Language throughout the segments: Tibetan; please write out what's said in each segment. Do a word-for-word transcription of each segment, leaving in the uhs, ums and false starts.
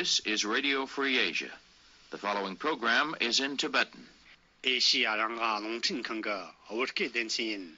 This is Radio Free Asia. The following program is in Tibetan. ཨེ་ཤི་ཡ་རང་དབང་རླུང་འཕྲིན་ཁང་གི་བོད་སྐད་སྡེ་ཚན་ཡིན།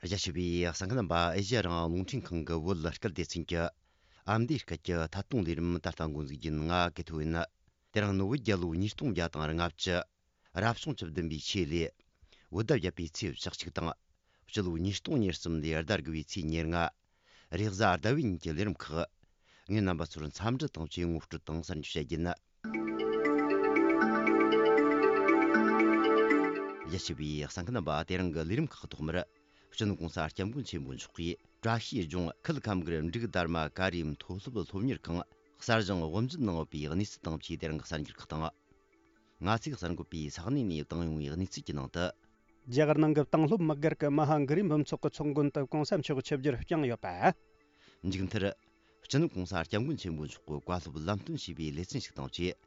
རྒྱ་ཆེ་བའི་གསན་མཁན་རྣམ་པ། ཨེ་ཤི་ཡ་རང་དབང་རླུང་འཕྲིན་ཁང་གི་བོད་སྐད་སྡེ་ཚན་གྱི་ཨ་མདོའི་སྐད་ཀྱི་ཐད་གཏོང་ལས་རིམ་ད་ལྟ་འགོ་འཛུགས་ཡིན། ང་ཀེ་ཐོ་ཡིན། དེ་རིང་ནི་བོད་རྒྱལ་ལོ་ཉིས་སྟོང་བརྒྱ་དང་ལྔ་བཅུ། རབ་བྱུང་བཅུ་བདུན་པའི་ཆོས་ལོའི་བོད་ཟླ་བརྒྱད་པའི་ཚེས་བཅུ་གཅིག་དང་། སྤྱི་ལོ་ཉིས་སྟོང་ཉེར་གསུམ་ལོའི་ཟླ་དགུ་བའི་ཚེས་ཉེར་ལྔ། རེས་གཟའ་ཟླ་བའི་ཉིན་གྱི་ལས་རིམ་ཁག་ངས་རྣམ་པ་ཚོར་འཚམས་འདྲི་དང་བཅས་ངོ་སྤྲོད་དང་གསར་འགྱུར་བཤད་རྒྱུ་ཡིན། རྒྱ་ཆེ་བའི་གསན་མཁན་རྣམ་པ། དེ་རིང་གི་ལས་རིམ་ཁག་ཐོག་མར། སྤྱི་ནོར་གོང་ས་སྐྱབས་མགོན་ཆེན་པོ་མཆོག་གིས་བཀྲ་ཤིས་ལྗོངས་ཁུལ་ཁམས་སྒར་འབྲུག་དར་མ་ཀ་རིའི་མཐོ་སློབ་སློབ་གཉེར་ཁང་གསར་བཞེངས་དབུ་འབྱེད་གནང་ཡོད་པའི་གནས་ཚུལ་དང་བཅས་དེ་རིང་གི་གསར་འགྱུར་ཁག་དང་། ང་ཚོས་གསར་འགོད་པས་ས་གནས་ནས་བཏང་ཡོང་བའི་གནས་ཚུལ་གྱི་ནང་དུ། རྒྱ་གར་ནང་གི་བཏང་སློབ་དམག་སྒར་གྱི་མ་ཧཱ་གྷི་རི་འབུམ་ཚོགས་ཀྱི་ཚོགས་མགོན་དུ་གོང་ས་མཆོག་ཆིབས་བསྒྱུར་བསྐྱངས་ཡོད་པ། མཇུག་མཐར། སྤྱི་ནོར་གོང་ས་སྐྱབས་མགོན་ཆེན་པོ་མཆོག་གི་བཀའ་སློབ་ལམ་སྟོན་བྱས་པའི་ལེ་ཚན་ཞིག་དང་བཅས།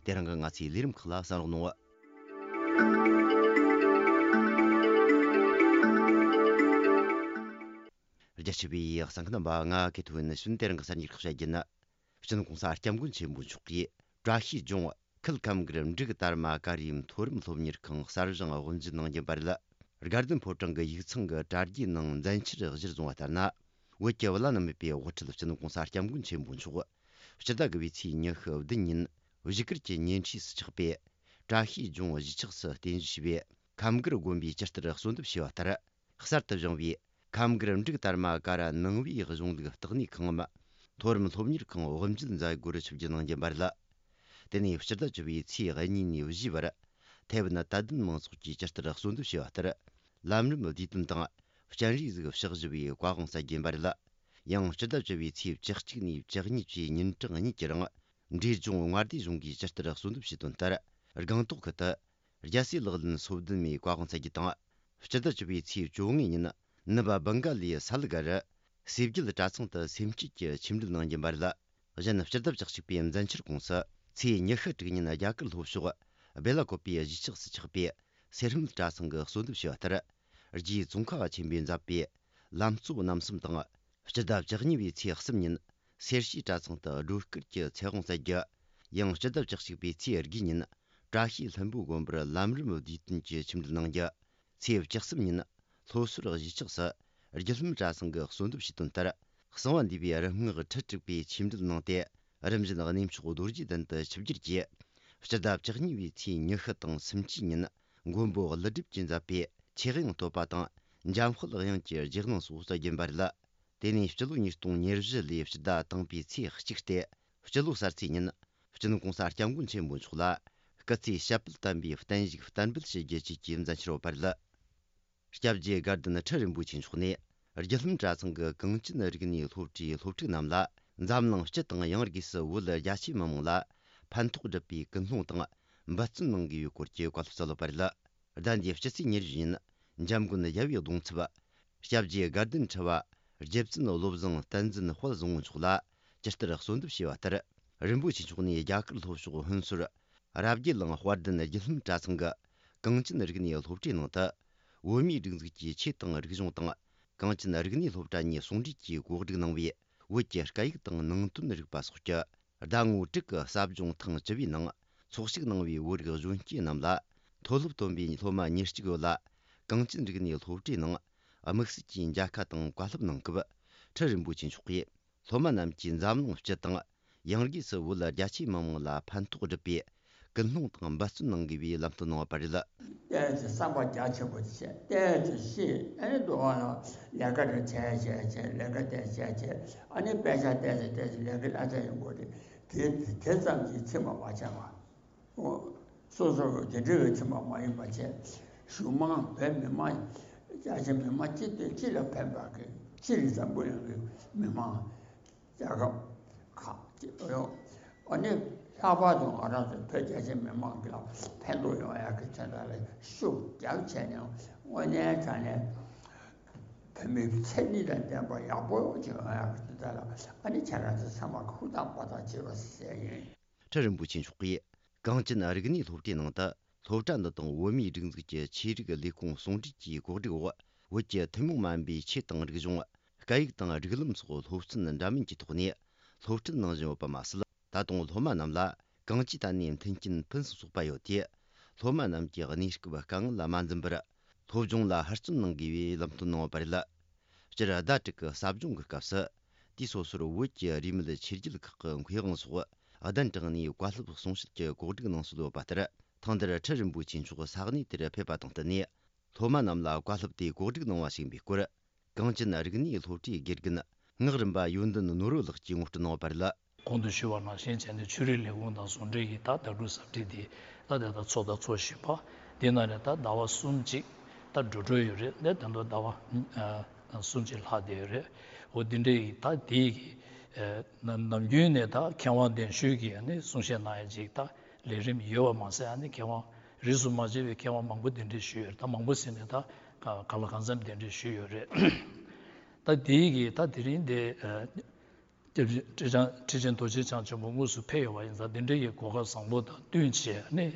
དེ་རིང་གི་ང་ཚོའི་ལས་རིམ་ཁག་ལ་གསན་རོགས་གནང་། རྒྱ་ཆེ་བའི་གསན་མཁན་རྣམ་པ། ང་ཀེ་ཐོ་ཡིན། ཕྱིན་དེ་རིང་གི་གསར་འགྱུར་ཁག་བཤད་རྒྱུ་ཡིན། སྤྱི་ནོར་གོང་ས་སྐྱབས་མགོན་ཆེན་པོ་མཆོག་གིས་བཀྲ་ཤིས་ལྗོངས་ཁུལ་ཁམས་སྒར་འབྲུག་དར་མ་ཀ་རིའི་མཐོ་རིམ་སློབ་གཉེར་ཁང་གསར་བཞེངས་དབུ་འབྱེད་གནང་རྒྱུ་ཡིན་པ་རེད། དགའ་ལྡན་ཕོ་བྲང་གི་ཡིག་ཚང་གི་དྲ་རྒྱའི་ནང་མཛད་འཆར་གཞིར་བཟུང་བ་ལྟར་ན། བོད་ཀྱི་བླ་ན་མེད་པའི་དབུ་ཁྲིད་སྤྱི་ནོར་གོང་ས་སྐྱབས་མགོན་ཆེན་པོ་མཆོག་སྤྱི་ཟླ་དགུ་བའི་ཚེས་ཉི་ཤུ་བདུན་ཉིན་བཞུགས་སྒར་གྱི་ཉེ་འཁྲིས་སུ་ཆགས་པའི་བཀྲ་ཤིས་ལྗོངས་གཞིས་ཆགས་སུ་རྟེན་གཞི་བྱས་པའི་ཁམས་སྒར་དགོན་པའི་སྤྱི་ལྟར་གསོལ་འདེབས་བྱས་པ་ལྟར། གསར་དུ་བཞེངས་པའི་ཁམས་སྒར་འབྲུག་དར་མ་ཀ་ར་ནང་པའི་གཞུང་ལུགས་ལྟེ་གནས་ཁང་ངམ་མཐོ་རིམ་སློབ་གཉེར་ཁང་དབུ་འབྱེད་མཛད་སྒོར་ཆིབས་བསྒྱུར་གནང་རྒྱུ་ཡིན་པ་རེད། དེ་ནས་སྤྱི་ཟླ་བཅུ་བའི་ཚེས་གཉིས་ནས་བཞིའི་བར་ཐའེ་ཝན་དད་ལྡན་མང་ཚོགས་ཀྱིས་ཇི་ལྟར་གསོལ་འདེབས་བྱས་པ་ལྟར། ལམ་རིམ་བསྡུས་དོན་དང་སྤྱན་རས་གཟིགས་ཕྱག་བཞི་པའི་བཀའ་དབང་སྩལ་རྒྱུ་ཡིན་པ་རེད། ཡང་སྤྱི་ཟླ་བཅུ་བའི་ཚེས་བཅུ་གཅིག་ནས་བཅུ་གཉིས་བཅས་ཉིན་གྲངས་གཉིས་ཀྱི་རིང་འབྲས་ལྗོངས་མངའ་སྡེ་གཞུང་གིས་ཇི་ལྟར་གསོལ་འདེབས་བྱས་དོན་ལྟར། སྒང་ཏོག་ཁུལ་དུ་རྒྱལ་སྲས་ལག་ལེན་སོ་བདུན་མའི་བཀའ་དབང་སྩལ་རྒྱུ་དང་། སྤྱི་ཟླ་བཅུ་བའི་ཚེས་བཅོ་ལྔའི་ཉིན་ནུབ་བྷང་ག་ལའི་སལ་གྷར་སེ་བརྒྱད་གྲྭ་ཚང་དུ་སེམས་བསྐྱེད་ཀྱི་ཆོས་འབྲེལ་གནང་རྒྱུ་ཡིན་པ་རེད། གཞན་སྤྱི་ཟླ་བཅུ་གཅིག་པའི་མཛད་འཆར་ཁོངས་སུ་ཚེས་ཉི་ཤུ་དྲུག་ཉིན་རྒྱ་གར་ལྷོ་ཕྱོགས་སྦེ་ལ་ཀོ་པའི་གཞིས་ཆགས་སུ་ཆགས་པའི་སེར་སྨད་གྲྭ་ཚང་གིས་གསོལ་འདེབས་བྱས་པ་ལྟར། རྗེ་ཙོང་ཁ་པ་ཆེན་པོས་མཛད་པའི་ལམ་གཙོ་རྣམ་གསུམ་དང་། སྤྱི་ཟླ་བཅུ་གཉིས་པའི་ཚེས་གསུམ་ཉིན་སེར་བྱེས་གྲྭ་ཚང་དུ་སྒྲོལ་དཀར་གྱི་ཚེ་དབང་སྩལ་རྒྱུ། ཡང་སྤྱི་ཟླ་བཅུ་གཅིག་པའི་ཚེས་དགུའི་ཉིན་བཀྲ་ཤིས་ལྷུན་པོ་དགོན་པར་ལམ་རིམ་བསྡུས་དོན་གྱི་ཆོས་འབྲེལ་གནང་རྒྱུ། ཚེས་བཅུ་གསུམ་ཉིན་ལྷོ་ཟུར་གཞིས་ཆགས་སུ་རྒྱུད་ལྷམ་གྲྭ་ཚང་གིས་གསོལ་འདེབས་བྱས་དོན་ལྟར། གསང་བ་འདུས་པའི་རིམ་བསྔགས་ཁྲི་དྲུག་པའི་ཆོས་འབྲེལ་གནང་སྟེ། རིམ་བཞིན་གནས་མཆོག་རྡོ་རྗེ་གདན་དུ་ཆིབས་བསྒྱུར་གྱིས། སྤྱི་ཟླ་བཅུ་གཉིས་པའི་ཚེས་ཉི་ཤུ་དང་སུམ་ཅུའི་ཉིན་མགོན་པོ་ཀླུ་སྒྲུབ་ཀྱིས་མཛད་པའི་ཆོས་དབྱིངས་བསྟོད་པ་དང་འཇམ་དཔལ་དབྱངས་ཀྱི་རྗེས་གནང་སོགས་སྩལ་རྒྱུ་ཡིན་པ་རེད། དེ་ནས་སྤྱི་ལོ་ཉིས་སྟོང་ཉེར་བཞི་ལོའི་སྤྱི་ཟླ་དང་པོའི་ཚེས་གཅིག་སྟེ། སྤྱི་ལོ་གསར་ཚེས་ཉིན་སྤྱི་ནོར་གོང་ས་སྐྱབས་མགོན་ཆེན་པོ་མཆོག་ལ་སྐུ་ཚེ་ཞབས་པད་བརྟན་པའི་བརྟན་བཞུགས་བསྟར་འབུལ་བྱེད་རྒྱུ་བཅས་ཀྱི་མཛད་འཆར་ཡོད་པ་རེད། སྐྱབས་རྗེ་དགའ་ལྡན་ཁྲི་རིན་པོ་ཆེ་མཆོག་ནས་རྒྱུད་ལྷམ་གྲྭ་ཚང་གི་གངས་ཅན་རིག་གནས་སློབ་གྲྭའི་སློབ་ཕྲུག་རྣམས་ལ་འཛམ་གླིང་སྤྱི་དང་ཡང་སྒོས་སུ་བོད་རྒྱ་ཆེའི་མི་མང་ལ་ཕན་ཐོགས་སྒྲུབ་པའི་ཀུན་སློང་དང་འབད་བརྩོན་གནང་དགོས་པའི་སྐོར་གྱི་བཀའ་སློབ་སྩལ་ཡོད་པ་རེད། ཟླ་འདིའི་སྤྱི་ཚེས་ཉེར་བཞི་ཉིན་འཇམ་མགོན་རྒྱལ་བའི་གདུང་ཚབ་སྐྱབས་རྗེ་དགའ་ལྡན་ཁྲི་པ་རྗེ་བཙུན་བློ་བཟང་བསྟན་འཛིན་དཔལ་བཟང་པོ་མཆོག་ལ་ཇི་ལྟར་གསོལ་འདེབས་བྱས་པ་ལྟར། རིན་པོ་ཆེ་མཆོག་ནས་རྒྱ་གར་ལྷོ་ཕྱོགས་ཧུན་སུར་རབ་རྒྱས་གླིང་དཔལ་ལྡན་རྒྱུད་ལྷམ་གྲྭ་ཚང་གི་གངས་ཅན་རིག་གནས་སློབ་གྲྭའི་ནང་དུ་བོད་མིའི་སྒྲིག་འཛུགས་ཀྱི་ཆོས་དང་རིག་གཞུང་དང་གངས་ཅན་རིག་གནས་སློབ་གྲྭ་གཉིས་ཟུང་འབྲེལ་གྱིས་གོ་སྒྲིག་གནང་བའི་བོད་ཀྱི་སྐད་ཡིག་དང་ནང་དོན་རིག་པ་སོགས་ཀྱི་ཟླ་ངོ་དྲུག་གི་ཟབ་སྦྱོང་ཐེངས་བཅུ་པའི་ནང་ཚོགས་ཞུགས་གནང་བའི་བོད་རིགས་གཞོན་སྐྱེས་རྣམས་ལ། མཐོ་སློབ་ཐོན་པའི་སློབ་མ་ཉེར་གཅིག་ཡོད་ལ། གངས་ཅན་རིག་གནས་སློབ་གྲྭའི་ནང་དམིགས་བསལ་གྱིས་མཇལ་ཁ་དང་བཀའ་སློབ་གནང་སྐབས། ཁྲི་རིན་པོ་ཆེ་མཆོག་གིས་སློབ་མ་རྣམས་ཀྱིས་འཛམ་གླིང་སྤྱི་དང་། ཡང་སྒོས་སུ་བོད་རྒྱ་ཆེའི་མི་མང་ལ་ཕན་ཐོགས་སྒྲུབ་པའི་ཀུན་སློང་དང་འབད་བརྩོན་གནང་དགོས་པའི་ལམ་སྟོན་གནང་བ་རེད། བསྟན་ཅིང་བསམ་པ་རྒྱ་ཆེན་པོ་བྱས། བསྟན་ཅིང་ཤེས། ཨ་ནི་འདུག་ཨ་ལས་ཀ་རེ་བྱས་བྱས་བྱས། ལས་ཀ་དེ་བྱས་བྱས། ཨ་ནི་དཔེ་ཆ་བལྟས་ཚེ་བལྟས་ཚེ་ལས་ཀ་ལ་ཚ་ཡོང་གི་རེད། དེ་དེ་ཙམ་གྱིས་ཚིམ་པ་མ་བྱས་པ། སོ་སོ་དེ་འདྲ་བའི་ཚིམ་པ་མ་ཡིན་པ་བྱས། གཞུང་མང་བོད་མི་མང་རྒྱ་ཆེ་མི་མང་སྤྱི་དེ་སྤྱི་ལ་ཕན་པ་གི་སྤྱི་ལ་འཛམ་བུ་གླིང་གི་མི་མང་རྒྱལ་ཁབ་ཁག་ཅིག་ཡོད། ཨ་ནི་ལྷག་པར་དུ་ང་རང་ཚོ་བོད་རྒྱ་ཆེ་མི་མང་གི་ལ་ཕན་ཐོགས་ཡོང་ཡག་གི་དོན་དག་ལ་ཤུགས་རྒྱབ་བྱས་ནས་དངོས་གནས་དྲང་གནས་བོད་མིའི་མཚན་ཉིད་དང་ལྡན་པ་ཡག་པོ་ཅིག་ཡོང་ཡག་གི་དོན་དག་ལ་ཨ་ནི་ཁྱེད་རང་ཚོ་ཚང་མ་ཧུར་ཐག་འབད་ཐག་བྱེད་པ་ཟེར་ཡིན། ཁྲི་རིན་པོ་ཆེ་མཆོག་གིས་ གངས་ཅན་རིག་གནས་སློབ་གྲྭའི་ནང་དུ། སློབ་གྲྭ་འདི་དང་བོད་མིའི་སྒྲིག་འཛུགས་ཀྱི་ཆོས་རིག་ལས་ཁུངས་ཟུང་འབྲེལ་གྱིས་གོ་སྒྲིག་འོག་བོད་ཀྱི་ཐུན་མོང་མ་ཡིན་པའི་ཆོས་དང་རིག་གཞུང་། སྐད་ཡིག་དང་སྒྲིག་ལམ་སོགས་སློབ་ཚན་འདྲ་མིན་གྱི་ཐོག་ནས་སློབ་ཁྲིད་གནང་བཞིན་ཡོད་པ་མ་ཟད། ད་དུང་སློབ་མ་རྣམས་ལ་གང་ཅིའི་ཐད་ནས་མཐུན་རྐྱེན་ཕུན་སུམ་ཚོགས་པ་ཡོད་དེ། སློབ་མ་རྣམས་ཀྱི་གནས་སྐབས་དཀའ་ངལ་མ་འཛེམས་པར། སློབ་སྦྱོང་ལ་ཧུར་བརྩོན་གནང་དགོས་པའི་ལམ་སྟོན་གནང་བ་རེད། སྤྱིར་ཟླ་དྲུག་གི་ཟབ་སྦྱོང་གི་སྐབས་སུ། དུས་སོ་སོར་བོད་ཀྱི་རིས་མེད་ཆོས་བརྒྱུད་ཁག་གི་མཁས་དབང་སོགས་གདན་དྲངས་ནས་བཀའ་སློབ་གསུང་བཤད་ཀྱི་གོ་སྒྲིག་གནང་སྲོལ་ཡོད་པ་ལྟར། ཐེངས་འདིར་ཁྲི་རིན་པོ་ཆེ་མཆོག་ས་གནས་དེར་ཕེབས་པ་དང་བསྟུན་ནས། སློབ་མ་རྣམས་ལ་བཀའ་སློབ་དེ་གོ་སྒྲིག་གནང་བ་ཞིག་ཡིན་པའི་སྐོར། གངས་ཅན་རིག་གནས་སློབ་གྲྭའི་དགེ་རྒན་ངག་རིན་པ་ཡོན་ཏན་ནོར་བུ་ལགས་ཀྱིས་ངོ་སྤྲོད་གནང་བ་རེད། གོང་དུ་ཞུས་པ་ནང་བཞིན་བྱས་ནས་ཆོས་རིག་ལས་ཁུངས་དང་ཟུང་འབྲེལ་གྱིས་ད་ཟླ་དྲུག་གཟའ་ཁྲིད་དེ་ད་དེ་ད་ཚོགས་ད་ཚོགས་བཞིན་པ། དེ་ནང་ནས་ད་ཟླ་བ་གསུམ་གཅིག་ད་འགྲོ་འགྲོ་ཡོད་རེད། ད་དེ་ཚོ་ཟླ་བ་གསུམ་གཅིག་ལྷག་བསྡད་ཡོད་རེད། འོ་དེ་འདྲའི་ད་དེའི་གི་ནམ་རྒྱུན་ནས་ད་མཁས་དབང་གདན་ཞུས་ཀྱིས་ནི་གསུང་བཤད་གནང་ཡ་ཅིག་ད་ལས་རིམ་ཡོད་པ་མ་ཟད། ཨ་ནི་མཁས་དབང་རིས་སུ་མ་ཆད་པའི་མཁས་དབང་མང་པོ་གདན་འདྲེན་ཞུས་ཡོད་རེད། ད་མང་པོ་ཟེར་ནས་ད་ག་ལ་གང་འཚམ་གདན་འདྲེན་ཞུས་ཡོད་རེད། ད་དེའི་གི་ད་དེ་རིང་དེ། ཁྲི་ཆེན་ཁྲི་ཆེན་རྡོ་རྗེ་འཆང་ཆེན་པོ་དངོས་སུ་ཕེབས་ཡོད་པ་ཡིན་ཙང་། དེ་འདྲའི་གི་གོ་སྐབས་བཟང་པོ་དང་བསྟུན་བྱས་ནས།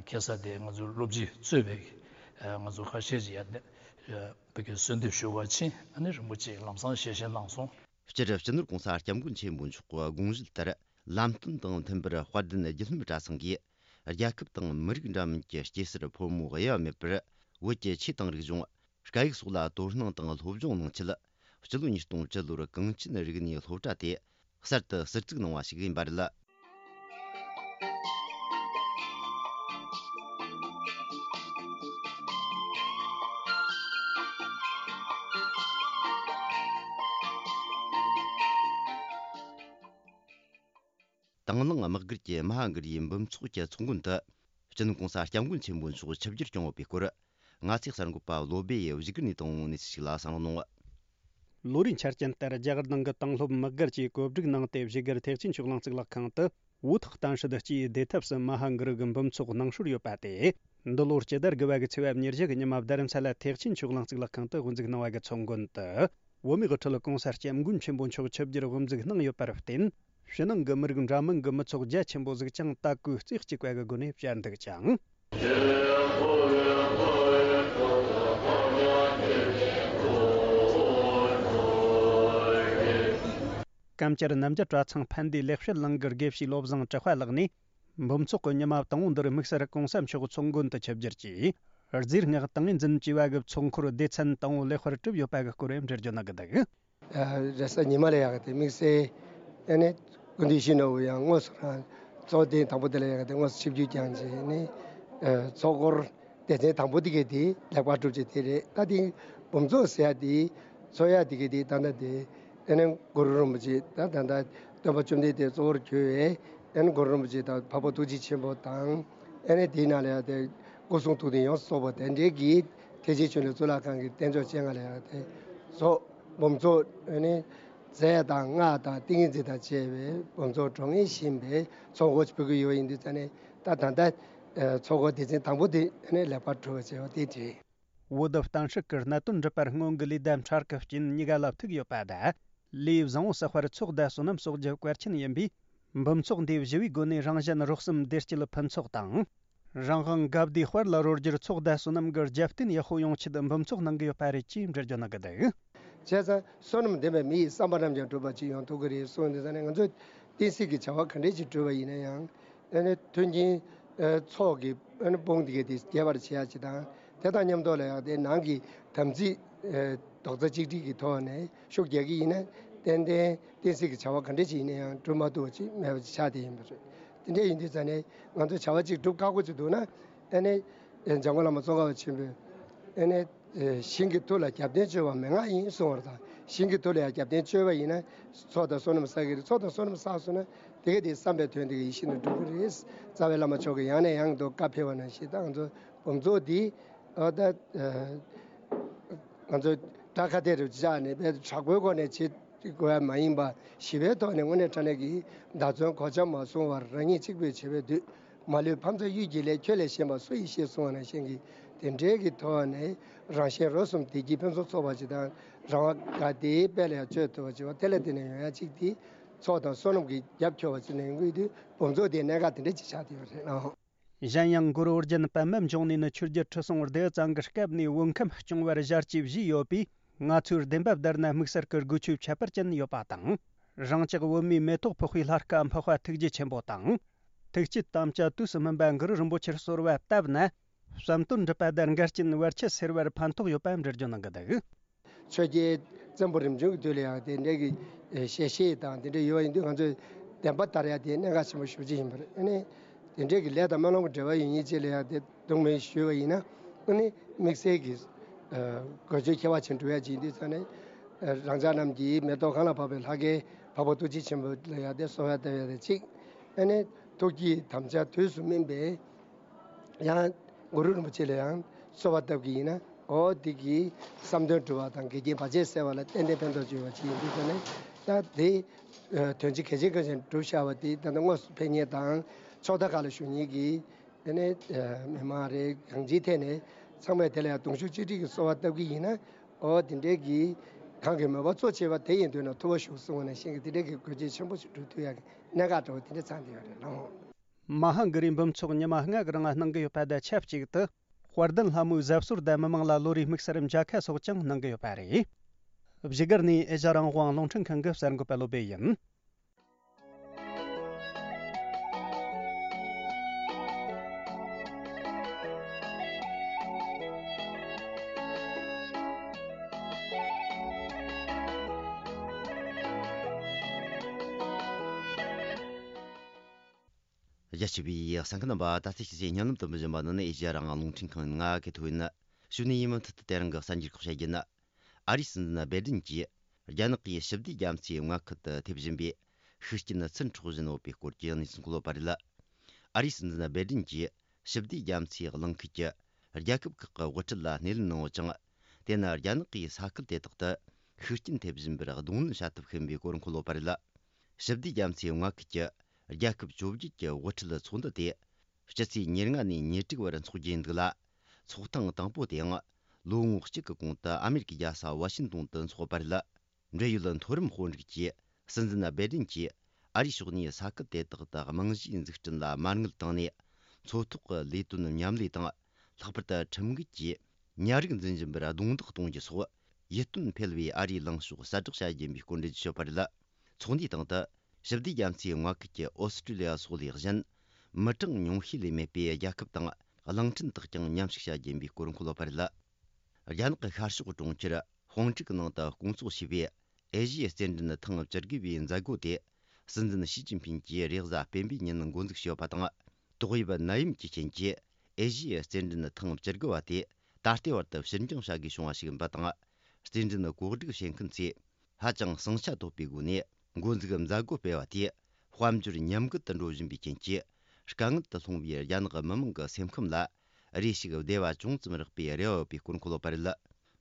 ཁ་སང་དེ་ང་ཚོའི་སློབ་སྤྱི་གཙོས་པའི་ང་ཚོ་ཁ་ཤས་ཀྱིས་ཡར་བོད་ཀྱི་གསོལ་འདེབས་ཞུ་བར་ཕྱིན། ཨ་ནི་རིན་པོ་ཆེས་ལམ་སང་ཞལ་བཞེས་གནང་སོང་། སྤྱིར་སྤྱི་ནོར་༸གོང་ས་༸སྐྱབས་མགོན་ཆེན་པོ་མཆོག་གི་དགོངས་གཞི་ལྟར། ལམ་སྟོན་དང་མཐུན་པར་དཔལ་ལྡན་རྒྱུད་གསུམ་གྲྭ་ཚང་གིས། རྒྱལ་ཁབ་དང་མི་རིགས་འདྲ་མིན་གྱི་སྐྱེ་སར་ཕོ་མོ་དབྱེ་བ་མེད་པར། བོད་ཀྱི་ཆོས་དང་རིག་གཞུང་། སྐད་ཡིག་སོགས་ལ་དོ་སྣང་དང་སློབ་སྦྱོང་གནང་ཆེད། སྤྱི་ལོ་ཉིས་སྟོང་བཅུ་ལོར་གངས་ཅན་རིག་གནས་སློབ་གྲྭ་དེ་གསར་དུ་ཟུར་བཙུགས་གནང་བ་ཞིག་ཡིན་པ་རེད། དང་བླངས་དམག་སྒར་གྱི་མ་ཧཱ་གུ་རུའི་འབུམ་ཚོགས་ཀྱི་ཚོགས་མགོན་དུ། སྤྱི་ནོར་༸གོང་ས་༸སྐྱབས་མགོན་ཆེན་པོ་མཆོག་ཆིབས་བསྒྱུར་བསྐྱངས་ཡོད་པའི་སྐོར། ང་ཚོའི་གསར་འགོད་པ་བློ་སྦེ་ཡིས་བཞུགས་སྒར་ནས་བཏང་བའི་གནས་ཚུལ་ཞིག་ལ་གསན་རོགས་གནང་། ལོ་རེའི་ཆ་རྐྱེན་ལྟར་རྒྱ་གར་ནང་གི་དང་སློབ་དམག་སྒར་གྱིས་གོ་སྒྲིག་གནང་སྟེ། བཞུགས་སྒར་ཐེག་ཆེན་ཆོས་གླིང་གཙུག་ལག་ཁང་དུ་བོད་ཐོག་གཏམ་བཤད་སྤྱིའི་བདེ་ཐབས་སུ་མ་ཧཱ་གུ་རུ་གི་འབུམ་ཚོགས་གནང་སྲོལ་ཡོད་པ་དེ། འདི་ལོར་སྤྱི་ཟླ་དགུ་པ་གི་ཚེས་པ་ཉེར་བཞི་གི་ཉི་མ་རྡ་རམ་ས་ལ་ཐེག་ཆེན་ཆོས་གླིང་གཙུག་ལག་ཁང་དུ་དབུ་འཛུགས་གནང་བ་གི་ཚོགས་མགོན་དུ། བོད་མིའི་དབུ་ཁྲིད་༸གོང་ས་༸སྐྱབས་མགོན་ཆེན་པོ་མཆོག་ཆིབས་བསྒྱུར་དབུ་འཛུགས་གནང་ཡོད་པར་བརྟེན། ཕྱི་ནང་གི་མི་རིགས་འདྲ་མིན་གྱི་མི་ཚོགས་རྒྱ་ཆེན་པོ་ཟིག་ཀྱང་སྟབས་བཀོད་རྩེ་གཅིག་པ་གི་སྒོ་ནས་བཅར་འདུག་ཅིང་། ཀམ་ཅར་རྣམ་རྒྱལ་གྲྭ་ཚང་ཕན་བདེའི་ལེགས་བཤད་གླིང་གི་དགེ་བཤེས་བློ་བཟང་གྲགས་པ་ལགས་ནས། འབུམ་ཚོགས་ཀྱི་ཉི་མ་དང་པོ་འདིར་དམིགས་བསལ་༸གོང་ས་མཆོག་ཚོགས་མགོན་དུ་ཆིབས་བསྒྱུར་གྱིས། རྫས་སྔགས་ཏིང་ངེ་འཛིན་བཅས་པ་གི་ཚོགས་འཁོར་སྡེ་ཚན་དང་པོ་ལེགས་པར་གྲུབ་ཡོད་པ་གི་སྐོར་འགྲེལ་བརྗོད་གནང་གི་འདུག། རེས་གཟའ་ཉི་མ་ལ་ཡག་གི་དེ་དམིགས་བསལ་ཨ་ནི་སྐུ་མདུན་ཞུ་ནོར་བུ་ཡང་དངོས་སུ་རང་ཚོགས་ཐེངས་དང་པོ་དེ་ལ་ཡག་གི་དེ་དངོས་སུ་ཆིབས་བསྒྱུར་བསྐྱངས་བྱས་ནས། ཚོགས་འཁོར་སྡེ་ཚན་དང་པོ་དེ་གའི་དེ་ལེགས་པར་གྲུབ་ཅིག་དེ་རེད། ད་དེ་འབུམ་ཚོགས་ཟེར་ཡ་དེ་ཚོགས་ཡ་དེ་གའི་དེ་ད་ལྟ་དེ་ཨ་ནི་གུ་རུ་རིན་པོ་ཆེ་ད་ད་ལྟ་སྟོན་པ་བཅོམ་ལྡན་འདས་གཙོ་བོར་གྱུར་བའི་ཨ་ནི་གུ་རུ་རིན་པོ་ཆེ་དང་འཕགས་པ་ཐུགས་རྗེ་ཆེན་པོ་དང་། ཨ་ནི་དེའི་ནང་ལ་ཡང་དེ་སྐུ་གསུང་ཐུགས་རྟེན་ཡོངས་སུ་རྫོགས་པ་དེ་འདྲའི་གི་ཐེག་ཆེན་ཆོས་གླིང་གཙུག་ལག་ཁང་གི་རྟེན་མཆོག་སྤྱན་སྔ་ལ་ཡང་དེ་ཚོགས་འབུམ་ཚོགས་ཨ་ནི་རྫས་དང་སྔགས་དང་ཏིང་ངེ་འཛིན་དང་བཅས་པའི་འབུམ་ཚོགས་གྲོང་ངེས་བཞིན་པའི་ཚོགས་འཁོར་ཕུལ་གྱི་ཡོད་ཡིན་དུས་ཙ་ནས། ད་ད་ལྟ་ཚོགས་འཁོར་སྡེ་ཚན་དང་པོ་དེ་ཨ་ནི་ལེགས་པར་གྲུབ་པ་བྱས་པ་དེ་རེད། བོད་དུ་གཏམ་བཤད་ཀྱི་གནད་དོན་འདྲི་བར་སྔོན་གྱི་ལས་བསྡད་འཕྲལ་གྱི་རྐྱེན་གཉིས་ཀ་ལ་ཐུག་ཡོད་པ་དང་། ལས་བཟང་བོ་བསགས་པར་ཚོགས་བསྡད་སོ་ནམ་གསོག་རྒྱུ་གལ་ཆེན་ཡིན་པས། འབུམ་ཚོགས་འདིའི་བཞི་བའི་སྒོ་ནས་རང་གཞན་རོགས་གསུམ་བདེ་སྐྱིད་ཕུན་ཚོགས་དང་། རང་དབང་དགའ་བདེའི་དཔལ་ལ་རོལ་རྒྱུར་ཚོགས་བསྡད་སོ་ནམ་གྱི་རྒྱབ་རྟེན་ཡག་པོ་ཡོང་ཆེད་འབུམ་ཚོགས་གནང་གི་ཡོད་པ་རེད་ཅེས་འགྲེལ་བརྗོད་གནང་གི་འདུག། བྱས་ཙང་བསོད་ནམས་ལྡན་པའི་མི་ཡི་བསམ་པ་རྣམས་ཀྱང་འགྲུབ་པ་ཅིག་ཡོང་ཐུབ་ཀྱི་རེད་གསུངས་དུས་ཙ་ནས། ང་ཚོས་བསྟན་སྲིད་ཀྱི་བྱ་བ་ག་འདྲས་ཅིག་བསྒྲུབས་པ་ཡིན་ན་ཡང་། ཨ་ནི་མཐུན་རྐྱེན་ཚོགས་ཀྱི་ཨ་ནི་དཔུང་དེ་གས་དེ་རྒྱས་པར་བྱེད་ཡ་ཅིག་དང་། དེ་དང་མཉམ་དུ་ལ་ཡང་དེ་ནང་གི་དམ་ཚིག་རྡོག་རྩ་གཅིག་སྒྲིལ་གྱི་ཐོག་ནས་ཤུགས་རྒྱག་གི་ཡིན་ན། ཏན་ཏན་བསྟན་སྲིད་ཀྱི་བྱ་བ་ག་འདྲས་ཅིག་ཡིན་ན་ཡང་འགྲུབ་མ་ཐུབ་པ་ཅིག་མེད་པ་ཅིག་ཆགས་བསྡད་ཡིན་པ་རེད། དེ་འདྲས་ཡིན་དུས་ཙ་ནས་ང་ཚོ་བྱ་བ་ཅིག་སྒྲུབ་ཁག་པོ་ཅིག་འདུག་ན། ཨ་ནི་འཇམ་མགོན་བླ་མ་ཙོང་ཁ་པ་ཆེན་པོས་ཨ་ནི་ཞིང་གི་མཐུ་ལ་རྒྱབ་རྟེན་བཅོལ་བ་མན་ངག་ཡིན་གསུངས་པ་དང་། ཞིང་གི་མཐུ་ལ་ཡང་རྒྱབ་རྟེན་བཅོལ་བ་ཡིན་ན་ཚོགས་དང་བསོད་ནམས་བསགས་ཀྱི་རེད། ཚོགས་དང་བསོད་ནམས་བསགས་སོང་ན་དེ་ག་དེ་བསམ་པའི་དོན་དེ་ག་ཡིད་བཞིན་དུ་འགྲུབ་ཀྱི་རེད། རྩ་བའི་བླ་མ་མཆོག་གིས་ཡང་ནས་ཡང་དུ་བཀའ་ཕེབས་པ་ནང་བཞིན། ད་ང་ཚོ་འབུམ་ཚོགས་འདི་ཨ་ད་ང་ཚོ་དགྲ་ཁ་གཏད་རུ་བཅག་ནས་དཔེ་དྲག་པོའི་སྒོ་ནས་བྱེད་དགོས་པ་མ་ཡིན་པ། ཞི་བའི་ཐོག་ནས་དངོས་གནས་དྲང་གནས་ཀྱི་བདག་བཙོན་གོ་ཆ་མ་བཟུང་བར་རང་ཉིད་གཅིག་པུས་བྱེད་པའི་དུས། མ་ལུས་ཕ་མཚན་གཡུལ་གྱི་ལས་ཁྱོད་ལས་གཞན་པ་སུ་ཡིས་ཤེས་གསུངས་པ་ནང་བཞིན་གྱི་དེ་འདྲའི་གི་ཐོག་ནས་རང་གཞན་རོགས་གསུམ་བདེ་སྐྱིད་ཕུན་སུམ་ཚོགས་པ་ཅིག་དང་། རང་དབང་དགའ་བདེའི་དཔལ་ལ་ཡང་སྤྱོད་ཐུབ་པ་ཅིག་བ་དེ་ལ་བརྟེན་ནས་ཡོང་ཡ་ཅིག་དེ་ ཚོགས་དང་བསོད་ནམས་ཀྱི་རྒྱབ་ཁྱོར་བ་ཅིག་ལེན་དགོས་དུས་སྦོམ་ཚོགས་དེའི་གནད་འགག་དེ་འདྲ་ཅིག་ཆགས་བསྡད་ཡོད་རེད་ལགས། གཞན་ཡང་གུ་རུ་ཨོ་རྒྱན་པདྨ་འབྱུང་གནས་ནི་ཆོས་རྒྱལ་ཁྲི་སྲོང་ལྡེའུ་བཙན་གྱི་སྐབས་ནས་བོད་ཁམས་སྐྱོང་བར་ཞལ་གྱིས་བཞེས་ཡོད་པས། ང་ཚོའི་བདེན་པ་བདར་ན་དམིགས་བསལ་གྱི་སྒོས་ཆོས་ཁྱད་པར་ཅན་ཡོད་པ་དང་། རང་ཅག་བོད་མིའི་མེ་ཏོག་ཕོག་པའི་ལྷ་སྐལ་འཕགས་པ་ཐུགས་རྗེ་ཆེན་པོ་དང་། ཐུགས་བསྐྱེད་དམ་བཅའ་དུས་སུ་སྨིན་པ་གུ་རུ་རིན་པོ་ཆེར་གསོལ་བ་བཏབ་ན། བསམ་དོན་འགྲུབ་པ་དང་འགལ་རྐྱེན་བར་ཆད་སེལ་བར་ཕན་ཐོགས་ཡོད་པ་འགྲེལ་བརྗོད་གནང་གི་འདུག། ཆོས་རྒྱལ་བཙན་པོ་རིམ་བྱོན་གྱི་དུས་ལ་ཡང་དེ་འདྲའི་གི་ཞལ་བཞེས་དང་དེ་འདྲ་ཡོད་པ་ཡིན་དུས་ང་ཚོས་བདེན་པ་ལྟར་ཡང་དེ་གནད་འགག་ཆེན་པོ་ཞེ་པོ་ཅིག་ཡིན་པ་རེད། ཨ་ནི་དེ་འདྲའི་གི་ལས་དང་སྨོན་ལམ་གྱི་འབྲེལ་བ་ཡོད་མཁན་ཅིག་ལ་ཡང་དེ་གདོང་མེད་ཞུས་པ་ཡིན་ན། ཨ་ནི་དམིགས་བསལ་གྱི་དགོས་ཆེད་ཁྱད་པར་ཅན་འགྲུབ་ཡ་ཅིག་ཡིན་དུས་ཙང་ནས། རང་ཅག་རྣམས་ཀྱི་མེ་ཏོག་གང་ལ་ཕོག་པའི་ལྷ་སྐལ་འཕགས་པ་ཐུགས་རྗེ་ཆེན་པོ་ལ་ཡང་དེ་གསོལ་བ་བཏབ་ཡ་དེ་གཅིག། ཨ་ནི་ཐུགས་བསྐྱེད་དམ་བཅའ་དུས་སུ་སྨིན་པའི། ཡང་གུ་རུ་རིན་པོ་ཆེ་ལ་ཡང་གསོལ་བ་བཏབ་ཀྱི་ཡིན་ན། འོ་དེ་གིས་བསམ་དོན་འགྲུབ་པ་དང་འགལ་རྐྱེན་བར་ཆད་སེལ་བ་ལ་ཏན་ཏན་ཕན་ཐོགས་ཡོད་པ་ཅིག་ཡིན་དུས་ཙང་ནས། ད་དེ་དོན་ཆེན་གལ་ཆེན་གལ་ཆེན་སྒྲུབ་བཞག་པ་དེ་ད་ལྟ་དངོས་སུ་ཕེབས་མཁན་དང་ཕྱོགས་མཐའ་ཁག་ལ་བཞུགས་མཁན་གྱི་དེ་ནས་མི་མང་རེད། གང་ཅིའི་ཐད་ནས་ཚང་མས་དེ་ལ་ཡང་གདུང་ཤུགས་གཅིག་སྒྲིལ་གྱིས་གསོལ་བ་བཏབ་ཀྱི་ཡིན་ན། འོ་དེ་འདྲའི་གི་གང་གི་མོས་པ་གཙོ་ཆེ་བ་དེ་ཡིན་དུས་ན་ཐུབ་པ་ཞུགས་གསུངས་པ་ནང་བཞིན་གྱི་དེ་འདྲའི་གི་དགོས་ཆེད་ཆེན་པོ་ཞིག་སྒྲུབ་ཐུབ་ཡ་གི་གནད་འགག་འདྲ་བོ་དེ་འདྲ་ཚང་བསྡད་ཡོད་རེད་ལགས། མ་ཧཱ་གི་རིའི་འབུམ་ཚོགས་ཉི་མ་ལྔ་གི་རིང་གནང་གི་ཡོད་པ་དང་ཆབས་ཅིག་ཏུ། དཔལ་ལྡན་ལྷ་མོའི་གཟབ་གསོལ་དང་མི་མང་ལ་བློ་རེའི་དམིགས་བསལ་མཇལ་ཁ་སོགས་ཀྱང་གནང་གི་ཡོད་པ་རེད། བཞུགས་སྒར་ནས་ཨེ་ཤ་ཡ་རང་དབང་རླུང་འཕྲིན་ཁང་གི་གསར་འགོད་པ་བློ་བྷེ་ཡིན། རྒྱ་ཆེ་བའི་གསན་མཁན་རྣམ་པ། ད་ལྟ་ཕྱི་ཚེས་ཉིན་ལམ་དུ་འབུལ་བཞིན་པ་ནི་ཨེ་ཤེ་ཡ་རང་དབང་རླུང་འཕྲིན་ཁང་ཡིན། ང་གི་ཐོ་ཡིན། ཞུ་ནས་ཡིན་མུ་མཐུད་དུ་དེ་རིང་གི་གསར་འགྱུར་ཁག་བཤད་རྒྱུ་ཡིན། ཨ་རིའི་སྲིད་འཛིན་སྦེ་ཏིན་གྱིས་རྒྱ་ནག་གིས་ཞི་བདེའི་རྒྱ་མཚོའི་མངའ་ཁུལ་དུ་ཐེབས་བཞིན་པའི་ཤུགས་རྐྱེན་ཚུར་འཕྲོག་བཞིན་ཡོད་པའི་སྐོར་གྱི་གནས་ཚུལ་འཁོད་པ་རེད། ཨ་རིའི་སྲིད་འཛིན་སྦེ་ཏིན་གྱིས་ཞི་བདེའི་རྒྱ་མཚོའི་གླིང་ཁུལ་གྱི་རྒྱལ་ཁབ་ཁག་གི་དབུ་ཁྲིད་ལ་སྣེ་ལེན་གནང་ཡོད་ཅིང་། དེ་ནི་རྒྱ་ནག་གིས་ས་ཁུལ་དེ་དག་ཏུ་ཤུགས་རྐྱེན་ཐེབས་བཞིན་པར་གདོང་ལེན་བྱ་ཐབས་ཤིག་ཡིན་པའི་སྐོར་འཁོད་ཡོད་པ་རེད། ཞི་བདེའི་རྒྱ་མཚོའི་མངའ་ཁུལ་གྱི་རྒྱལ་ཁབ་བཅོ་བརྒྱད་ཀྱི་དབུ་ཁྲིད་ཚོགས་འདུ་དེ་སྤྱི་ཚེས་ཉེར་ལྔ་ནས་ཉེར་དྲུག་བར་འཚོགས་རྒྱུ་ཡིན་འདུག་ལ། ཚོགས་ཐེངས་དང་པོ་དེའང་ལོ་ངོ་གཅིག་གི་གོང་དུ་ཨ་མེ་རི་ཀའི་རྒྱལ་ས་ཝ་ཤིང་ཏོན་དུ་འཚོགས་པ་རེད། འབྲེལ་ཡོད་མཐོ་རིམ་དཔོན་རིགས་ཀྱིས་སྲིད་འཛིན་སྦེ་ཏིན་གྱིས་ཨ་རིའི་ཕྱོགས་ནས་ས་ཁུལ་དེ་དག་ཏུ་རྨང་གཞིའི་འཛུགས་སྐྲུན་ལ་མ་དངུལ་བཏང་ནས། མཚོ་ཐོག་གི་ལས་དོན་མཉམ་ལས་དང་། ལྷག་པར་དུ་ཁྲིམས་འགལ་གྱིས་ཉ་རིགས་འཛིན་བཞིན་པར་རྡུང་རྡེག་གཏོང་རྒྱུ་སོགས་ཡིད་རྟོན་འཕེར་བའི་ཨ་རིའི་ལངས་ཕྱོགས་གསལ་བསྒྲགས་བྱ་རྒྱུ་ཡིན་པའི་སྐོར་འགྲེལ་བརྗོད་བྱས་ཡོད་པ་རེད། ཚོགས་འདུའི་སྟེང་དུ་ཞི་བདེའི་རྒྱ་མཚོའི་མངའ་ཁུལ་གྱི་ཨོ་སི་ཀྲི་ལི་ཡ་སོགས་ལས་གཞན། མི་གྲངས་ཉུང་ཤས་ལས་མེད་པའི་རྒྱལ་ཁབ་དང་གླིང་ཕྲན་དག་ཀྱང་མཉམ་ཞུགས་བྱ་རྒྱུ་ཡིན་པའི་སྐོར་འཁོད་ཡོད་པ་རེད། རྒྱ་ནག་གི་ཤར་ཕྱོགས་གྲོང་ཁྱེར་ཧོང་ཀྲུག་ནང་དུ་སྐོང་ཚོགས་བྱས་པའི་ཨེ་ཤི་ཡའི་རྩེད་འགྲན་ཐེངས་བཅུ་དགུ་པའི་མཛད་སྒོ་དེ་སྲིད་འཛིན་ཞི་ཅིན་ཕིན་གྱིས་རེས་གཟའ་སྤེན་པའི་ཉིན་འགོ་འཛུགས་བྱས་ཡོད་པ་དང་། ཏོག་དབྱིབས་ནད་ཡམས་ཀྱི་རྐྱེན་གྱིས་ཨེ་ཤི་ཡའི་རྩེད་འགྲན་ཐེངས་བཅུ་དགུ་པ་དེ་ད་ལྟའི་བར་དུ་ཕྱིར་འགྱངས་བྱ་དགོས་བྱུང་བ་ཞིག་ཡིན་པ་དང་། རྩེད་འགྲན་གོ་སྒྲིག་བྱེད་མཁན་ཚོས་ཧ་ཅང་ཟིང་ཆ་དོད་པའི་སྒོ་ནས་འགོ་འཛུགས་མཛད་སྒོ་སྤེལ་བ་དེས་དཔལ་འབྱོར་ཉམས་རྒུད་དུ་འགྲོ་བཞིན་པའི་རྐྱེན་གྱིས། དཀའ་ངལ་དུ་ལྷུང་བའི་རྒྱ་ནག་མི་མང་གི་སེམས་ཁམས་ལ་རེ་ཞིག་བདེ་བ་ཅུང་ཙམ་རག་པའི་རེ་བ་ཡོད་པའི་སྐོར་འཁོད་ཡོད་པ་རེད།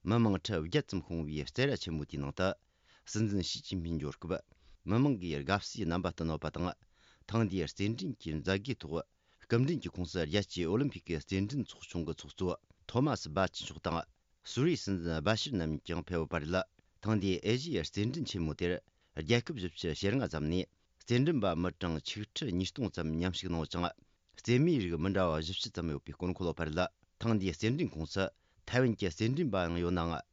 མི་མང་ཁྲི་བརྒྱད་ཙམ་ཤོང་བའི་རྩེད་ར་ཆེན་མོ་དེའི་ནང་དུ། སྲིད་འཛིན་ཞི་ཅིན་ཕིན་འབྱོར་སྐབས། མི་མང་གིས་དགའ་བསུའི་རྣམ་པ་བསྟན་ཡོད་པ་དང་། ཐེངས་འདིའི་རྩེད་འགྲན་གྱི་མཛད་སྒོའི་ཐོག་སྐུ་མགྲོན་གྱི་ཁོངས་སུ། རྒྱལ་སྤྱིའི་ཨོ་ལིམ་ཕིག་གི་རྩེད་འགྲན་ཚོགས་ཆུང་གི་ཚོགས་གཙོ་ཐོ་མ་སི་བྷ་ཆི་མཆོག་དང་། སུ་རིའི་སྲིད་འཛིན་སྦ་ཤིར་རྣམ་གཉིས་ཀྱང་ཕེབས་ཡོད་པ་རེད། ཐེངས་འདིའི་ཨེ་ཤི་ཡའི་རྩེད་འགྲན་ཆེན་མོ་དེར། རྒྱལ་ཁབ་བཞི་བཅུ་ཞེ་ལྔ་ཙམ་ནས་རྩེད་འགྲན་པ་མི་གྲངས་ཆིག་ཁྲི་ཉིས་སྟོང་ཙམ་མཉམ་ཞུགས་གནང་ཡོད་ཅིང་། རྩེད་མོའི་རིགས་མི་འདྲ་བ་བཞི་བཅུ་ཙམ་ཡོད་པའི་སྐོར་འཁོད་ཡོད་པ་རེད། ཐེངས་འདིའི་རྩེད་འགྲན་ཁོངས་སུ་ཐའེ་ཝན་གྱི་རྩེད་འགྲན་པ་ཡང་ཡོད་ནའང་།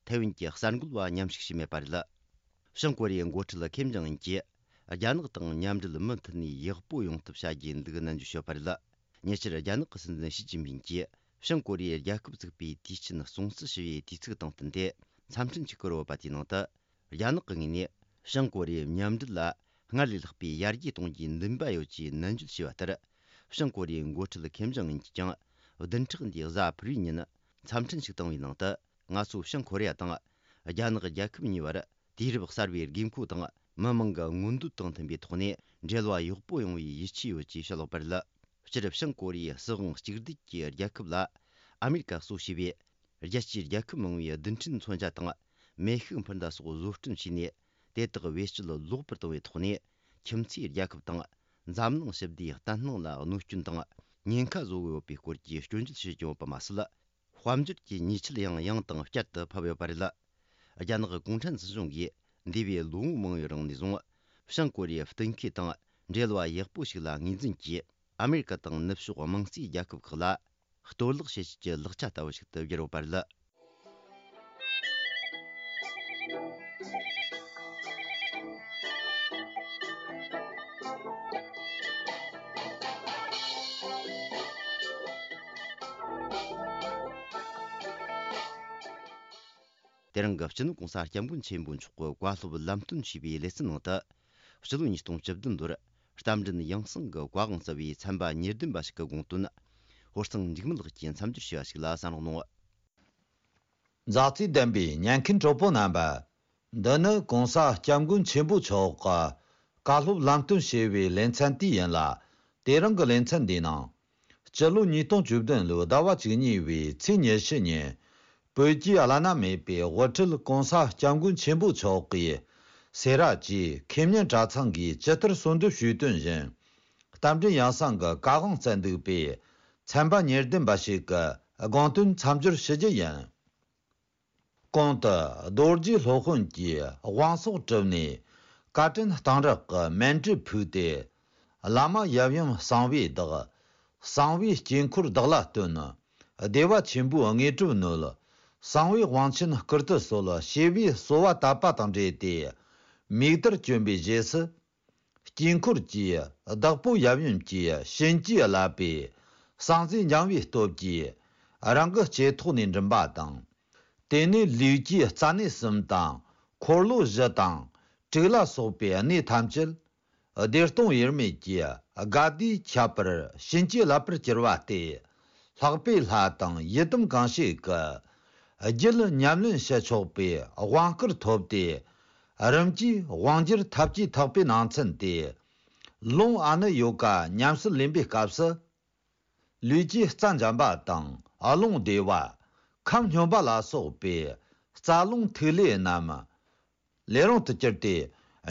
ཐའེ་ཝན་གྱི་གསར་འགོད་པ་མཉམ་ཞུགས་བྱས་མེད་པ་རེད། བྱང་ཀོ་རི་ཡའི་འགོ་ཁྲིད་ཁེམ་ཇོང་ཨུན་གྱིས་རྒྱ་ནག་དང་མཉམ་འབྲེལ་མུ་མཐུད་ནས་ཡག་པོ་ཡོང་ཐབས་བྱ་རྒྱུའི་འདུག་ནན་བརྗོད་བྱས་པ་རེད། ཉེ་ཆར་རྒྱ་ནག་གི་སྲིད་འཛིན་ཞི་ཅིན་ཕིན་གྱིས་བྱང་ཀོ་རི་ཡའི་རྒྱལ་ཁབ་བཙུགས་པའི་དུས་ཆེན་སྲུང་བརྩི་ཞུ་བའི་དུས་ཚིགས་དང་བསྟུན་ཏེ་འཚམས་འཕྲིན་ཅིག་བསྐུར་ཡོད་པ་དེའི་ནང་དུ། རྒྱ་ནག་གི་ངོས་ནས་བྱང་ཀོ་རི་ཡའི་མཉམ་འབྲེལ་ལ་སྔར་ལས་ལྷག་པའི་ཡར་རྒྱས་གཏོང་རྒྱུའི་འདུན་པ་ཡོད་ཅེས་ནན་བརྗོད་བྱས་པ་ལྟར། བྱང་ཀོ་རི་ཡའི་འགོ་ཁྲིད་ཁེམ་ཇོང་ཨུན་གྱིས་ཀྱང་བདུན་ཕྲག་འདིའི་གཟའ་ཕུར་བུའི་ཉིན་འཚམས་འཕྲིན་ཞིག་བཏང་བའི་ནང་དུ། ང་ཚོ་བྱང་ཀོ་རི་ཡ་དང་རྒྱ་ནག་རྒྱལ་ཁབ་གཉིས་བར་དུས་རབས་གསར་བའི་དགོས་མཁོ་དང་མི་མང་གི་མངོན་འདོད་དང་མཐུན་པའི་ཐོག་ནས་འབྲེལ་བ་ཡག་པོ་ཡོང་བའི་ཡིད་ཆེས་ཡོད་ཅེས་བཤད་ཡོད་པ་རེད། སྤྱིར་བྱང་ཀོ་རི་ཡའི་སྲིད་དབང་གཅིག་སྡུད་ཀྱི་རྒྱལ་ཁབ་ལ་ཨ་མེ་རི་ཀ་གཙོ་བྱས་པའི་རྒྱལ་སྤྱིའི་རྒྱལ་ཁབ་མང་བོའི་རྡུལ་ཕྲན་མཚོན་ཆ་དང་མེ་ཤུགས་འཕུར་མདའ་སོགས་བཟོ་སྐྲུན་བྱས་ནས། དེ་དག་བེད་སྤྱོད་ལོག་པར་གཏོང་བའི་ཐོག་ནས་ཁྱིམ་མཚེས་རྒྱལ་ཁབ་དང་འཛམ་གླིང་ཞི་བདེའི་བརྟན་ལྷིང་ལ་གནོད་སྐྱོན་དང་ཉེན་ཁ་བཟོ་གི་ཡོད་པའི་སྐོར་གྱི་སྐྱོན་བརྗོད་བྱེད་ཀྱི་ཡོད་པ་མ་ཟད། དཔལ་འབྱོར་གྱི་ཉེས་ཆད་ཡང་ཡང་དང་བསྐྱར་དུ་ཕབ་ཡོད་པ་རེད། རྒྱ་ནག་གུང་ཁྲན་སྲིད་གཞུང་གིས་འདས་པའི་ལོ་ངོ་མང་བོའི་རིང་ནས་བཟུང་ བྱང་ཀོ་རི་ཡའི་གཏན་འཁེལ་དང་འབྲེལ་བ་ཡག་པོ་ཞིག་ལ་ངོས་འཛིན་གྱིས། ཨ་མེ་རི་ཀ་དང་ནུབ་ཕྱོགས་དམངས་གཙོའི་རྒྱལ་ཁབ་ཁག་ལ་གཏོར་བརླག་བྱེད་བྱེད་ཀྱི་ལག་ཆ་ལྟ་བུ་ཞིག་ཏུ་བསྒྱུར་ཡོད་པ་རེད། དེ་རིང་གི་སྤྱི་ནོར་༸གོང་ས་༸སྐྱབས་མགོན་ཆེན་པོ་མཆོག་གི་བཀའ་སློབ་ལམ་སྟོན་ཞུས་པའི་ལེ་ཚན་ནང་དུ། སྤྱི་ལོ་ཉིས་སྟོང་བཅུ་བདུན་ལོར་རྟ་མགྲིན་ཡང་གསང་གི་བཀའ་དབང་བསྩལ་བའི་ཚན་པ་ཉེར་བདུན་པ་ཞིག་གི་དགོངས་དོན། ཧོར་གཙང་འཇིགས་མེད་ལགས་ཀྱིས་མཚམས་སྦྱོར་ཞུས་པ་ཞིག་ལ་གསན་རོགས་གནང་། མཛའ་བརྩེ་ལྡན་པའི་ཉན་མཁན་གྲོགས་པོ་རྣམ་པ། འདི་ནི་༸གོང་ས་༸སྐྱབས་མགོན་ཆེན་པོ་མཆོག་གི་བཀའ་སློབ་ལམ་སྟོན་ཞེས་པའི་ལེ་ཚན་དེ་ཡིན་ལ། དེ་རིང་གི་ལེ་ཚན་འདིའི་ནང་། སྤྱི་ལོ་ཉིས་སྟོང་བཅུ་བདུན་ལོའི་ཟླ་བ་བཅུ་གཉིས་པའི་ཚེས་ཉི་ཤུ་ཉིན། བོད་ཀྱི་བླ་ན་མེད་པའི་དབུ་ཁྲིད་༸གོང་ས་༸སྐྱབས་མགོན་ཆེན་པོ་མཆོག་གིས་སེ་ར་བྱེས་ཁེ་སྨྱན་གྲྭ་ཚང་གིས་ཇི་ལྟར་གསོལ་འདེབས་ཞུས་དོན་བཞིན། རྟ་མགྲིན་ཡང་གསང་གི་བཀའ་དབང་བསྩལ་འདུག་པས། ཚན་པ་ཉེར་བདུན་པ་ཞིག་གི་དགོངས་དོན་མཚམས་སྦྱོར་ཞུ་རྒྱུ་ཡིན། གོང་དུ་རྡོ་རྗེ་སློབ་དཔོན་གྱིས་དབང་སོགས་གྲུབ་ནས། བཀའ་དྲིན་གཏང་རག་གི་མཎྜལ་ཕུལ་ཏེ། བླ་མ་ཡབ་ཡུམ་གསང་བའི་བདག། གསང་བའི་དཀྱིལ་འཁོར་བདག་ལ་སྟོན། བདེ་བ་ཆེན་པོའི་དངོས་གྲུབ་ནོད། གསང་བའི་དབང་ཆེན་བསྐུར་དུ་གསོལ། ཞེས་པའི་གསོལ་བ་བཏབ་པ་དང་འབྲེལ་ཏེ། མིག་དར་གྱོན་པའི་རྗེས་སུ། དཀྱིལ་འཁོར་གྱི་བདག་པོ་ཡབ་ཡུམ་གྱི་གཤིན་རྗེ་བརླབས་པའི་གསང་རྫས་འགྱིང་བའི་སྟོབས་ཀྱིས་རང་གི་ལྕེ་ཐོག་ནས་མགྲིན་པ་དང་། དེ་ནས་ལུས་ཀྱི་རྩ་གནས་གསུམ་དང་འཁོར་ལོ་བཞི་དང་དྲུག་ལ་སོགས་པའི་གནས་ཐམས་ཅད་བདེ་སྟོང་དབྱེར་མེད་ཀྱི་དགའ་བདེའི་ཁྱད་པར་གཤིན་རྗེ་བརླབས་པར་གྱུར་པ་སྟེ། ལྷག་པའི་ལྷ་དང་ཡི་དམ་གང་བྱེད་ཀྱི་རྒྱུད་ཉམས་ལེན་བྱེད་ཆོག་པའི་དབང་བསྐུར་ཐོབ་སྟེ། རིམ་གྱིས་དབང་བསྒྱུར་ཐབས་ཀྱི་ཐེག་པའི་ནང་ཚན་ཏེ། ལུང་ཨ་ནུ་ཡོ་ག་ཉམས་སུ་ལེན་པའི་སྐབས་སུ། ལུས་ཀྱི་རྩ་འཇམ་པ་དང་རླུང་བདེ་བ། ཁམས་སྙོམས་པ་ལ་སོགས་པའི་རྩ་རླུང་ཐིག་ལེ་རྣམས་ལས་རུང་དུ་གྱུར་ཏེ།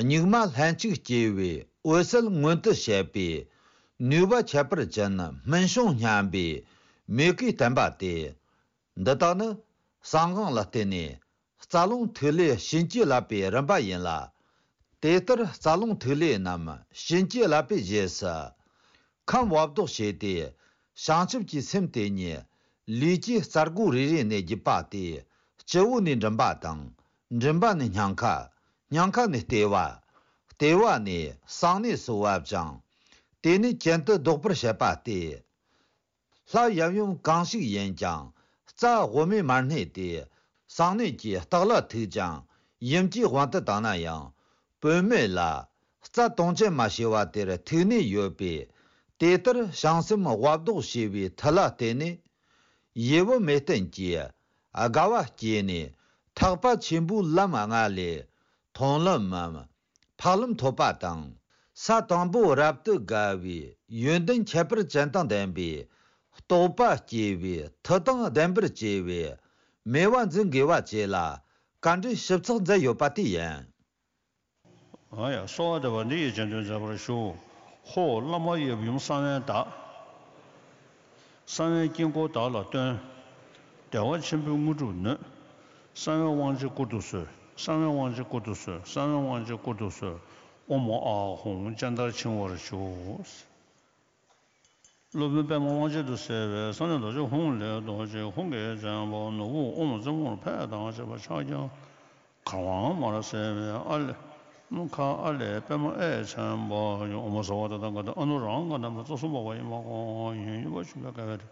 གཉུག་མ་ལྷན་ཅིག་སྐྱེས་པའི་འོད་གསལ་མངོན་དུ་བྱེད་པའི་ནུས་པ་ཁྱད་པར་ཅན་སྨིན་བྱུང་སྙམ་པའི་མོས་གུས་བསྟན་པ་སྟེ། འདི་དག་ནི་གསང་སྔགས་ལ་བརྟེན་ནས་རྩ་རླུང་ཐིག་ལེ་གཤིན་རྗེ་བརླབས་པའི་རིམ་པ་ཡིན་ལ། དེ་ལྟར་རྩ་རླུང་ཐིག་ལེ་རྣམས་གཤིན་རྗེ་བརླབས་པའི་རྗེས་སུ། ཁམས་བབ་ལྡོག་བྱས་ཏེ། བྱང་ཆུབ་ཀྱི་སེམས་དེ་ཉིད་ལུས་ཀྱི་རྩ་སྒོ་རེ་རེ་ནས་བརྒྱུད་པ་སྟེ། སྤྱི་བོ་ནས་མགྲིན་པ་དང་། མགྲིན་པ་ནས་སྙིང་ཁ། སྙིང་ཁ་ནས་ལྟེ་བ། ལྟེ་བ་ནས་གསང་གནས་སུ་བབ་ཅིང་། དེ་ནས་གྱེན་དུ་ལྡོག་པར་བྱེད་པ་སྟེ། ལྷ་ཡབ་ཡུམ་གང་ཞིག་ཡིན་ཀྱང་རྩ་དབུ་མའི་མར་གནས་ཏེ། གསང་གནས་ཀྱི་ལྟག་ལ་ཐུག་ཅིང་ཡུམ་གྱི་དབང་དུ་བཏང་ན་ཡང་བུད་མེད་ལ་རྩ་དུང་ཅན་མ་ཞེས་པ་དེར་ཐུག་གནས་ཡོད་པས། དེ་ལྟར་བྱང་སེམས་དབབ་ལྡོག་བྱས་པའི་མཐུ་ལ་བརྟེན་ནས། ཡིད་བུ་མེད་རྟེན་གྱི་དགའ་བ་སྐྱེས་ནས་ཐེག་པ་ཆེན་པོའི་ལམ་ལྔ་ལས་མཐོང་ལམ་མམ། འཕགས་ལམ་ཐོབ་པ་དང་། ས་དང་པོ་རབ་ཏུ་དགའ་བའི་ཡོན་ཏན་ཁྱད་པར་ཅན་དང་ལྡན་པའི་རྟོགས་པ་སྐྱེ་བའི་མཐུ་དང་ལྡན་པར་བྱས་པའི་མོས་པ་འཛིན་དགོས་པ་བཅས་ལ་བཀའ་འདྲི་ཞིབ་ཚགས་མཛད་ཡོད་པ་དེ་ཡིན། ཨ་ཡ། གསོལ་བ་འདེབས་པ་འདི་ཡིས་རྗེས་ཟློས་མཛད་པར་ཞུ། ཧོ། བླ་མ་ཡབ་ཡུམ་གསང་བའི་བདག། གསང་བའི་དཀྱིལ་འཁོར་བདག་ལ་སྟོན། བདེ་བ་ཆེན་པོའི་དངོས་གྲུབ་ནོད། གསང་བའི་དབང་ཆེན་བསྐུར་དུ་གསོལ། གསང་བའི་དབང་ཆེན་བསྐུར་དུ་གསོལ། གསང་བའི་དབང་ཆེན་བསྐུར་དུ་གསོལ། ཨོཾ་ཨཱཿཧཱུྃ་སྤྱན་ལྟར་འཆིང་བར་ཞུ། སློབ་དཔོན་པདྨ་དབང་ཆེན་དུ་གསལ་བའི་གསང་གནས་རྡོ་རྗེ་ཧཱུྃ་ལས་རྡོ་རྗེ་ཧཱུྃ་གི་རྒྱལ་པོ་ནོར་བུ་ཨོཾ་རྩེ་མོར་ཕེབས་དང་བཅས་པ་ཕྱག་རྒྱ་གར་དབང་མར་གསལ་བའི་ཨ་ལས། ཁ་ཨ་ལས་པདྨ་ཨེ་ཆེན་པོ་ཡི། ཨོཾ་སརྦ་ཏ་ཐཱ་ག་ཏ་ཨ་ནུ་རཱ་ཧཱུྃ་ག་ན་མ་རྩ་གསུམ་པ་ཡི་མ་ཀོ་ཡིན། ཡུམ་པ་ཆུ་བའི་ཀ་བའི་རི།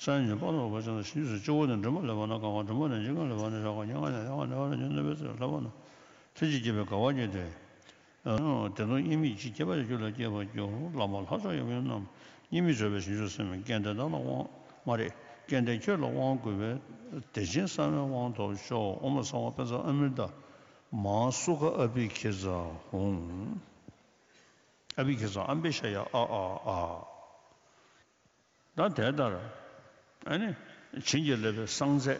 སངས་རྒྱས་པ་ལོ་པ་ཅན་དང་ཞིང་རྗེ་སོགས་སྤྱི་བོ་ནས་མགྲིན་པ་ལས་བར་སྣང་གང་བ། མགྲིན་པ་ནས་ཕྱི་ཁ་ལས་བར་སྣང་ཞག་གི་ཉེ་ལྔ་ནས་ཡང་ནས་ཡང་ནས་ཉོན་མོངས་པའི་ཚེ་ལྷ་བ་ན་ལྷན་ཅིག་སྐྱེས་པའི་དགའ་བ་བརྙེས་ཏེ། དེ་དང་དབྱེར་མེད་ཅིང་ཁྱད་པར་ཅན་རྒྱུད་ལ་སྐྱེས་པར་གྱུར། བླ་མ་ལྷ་མཆོག་ཡབ་ཡུམ་རྣམས་དབྱེར་མེད་མཛད་པའི་བྱང་ཆུབ་སེམས། སྐལ་ལྡན་བདག་ལ་དབང་མ་རེད། སྐལ་ལྡན་ཁྱོད་ལ་དབང་བསྐུར་བས། བདེ་ཆེན་གསང་བའི་དབང་ཐོབ་ཤོག། ཨོཾ་སརྦ་པཉྩ་ཨ་མྲྀ་ཏ་མ་སུ་ཁ་ཨ་བྷི་ཥིཿ་ཙ་ཧཱུྃ། ཨ་བྷི་ཥིཿ་ཙ་ཨ་བྷི་ཥ་ཡ་ཨ་ཨ་ཨ། ད་དེ་ལྟར་ཨ་ནི་བྱིན་གྱིས་བརླབས་པའི་གསང་རྫས་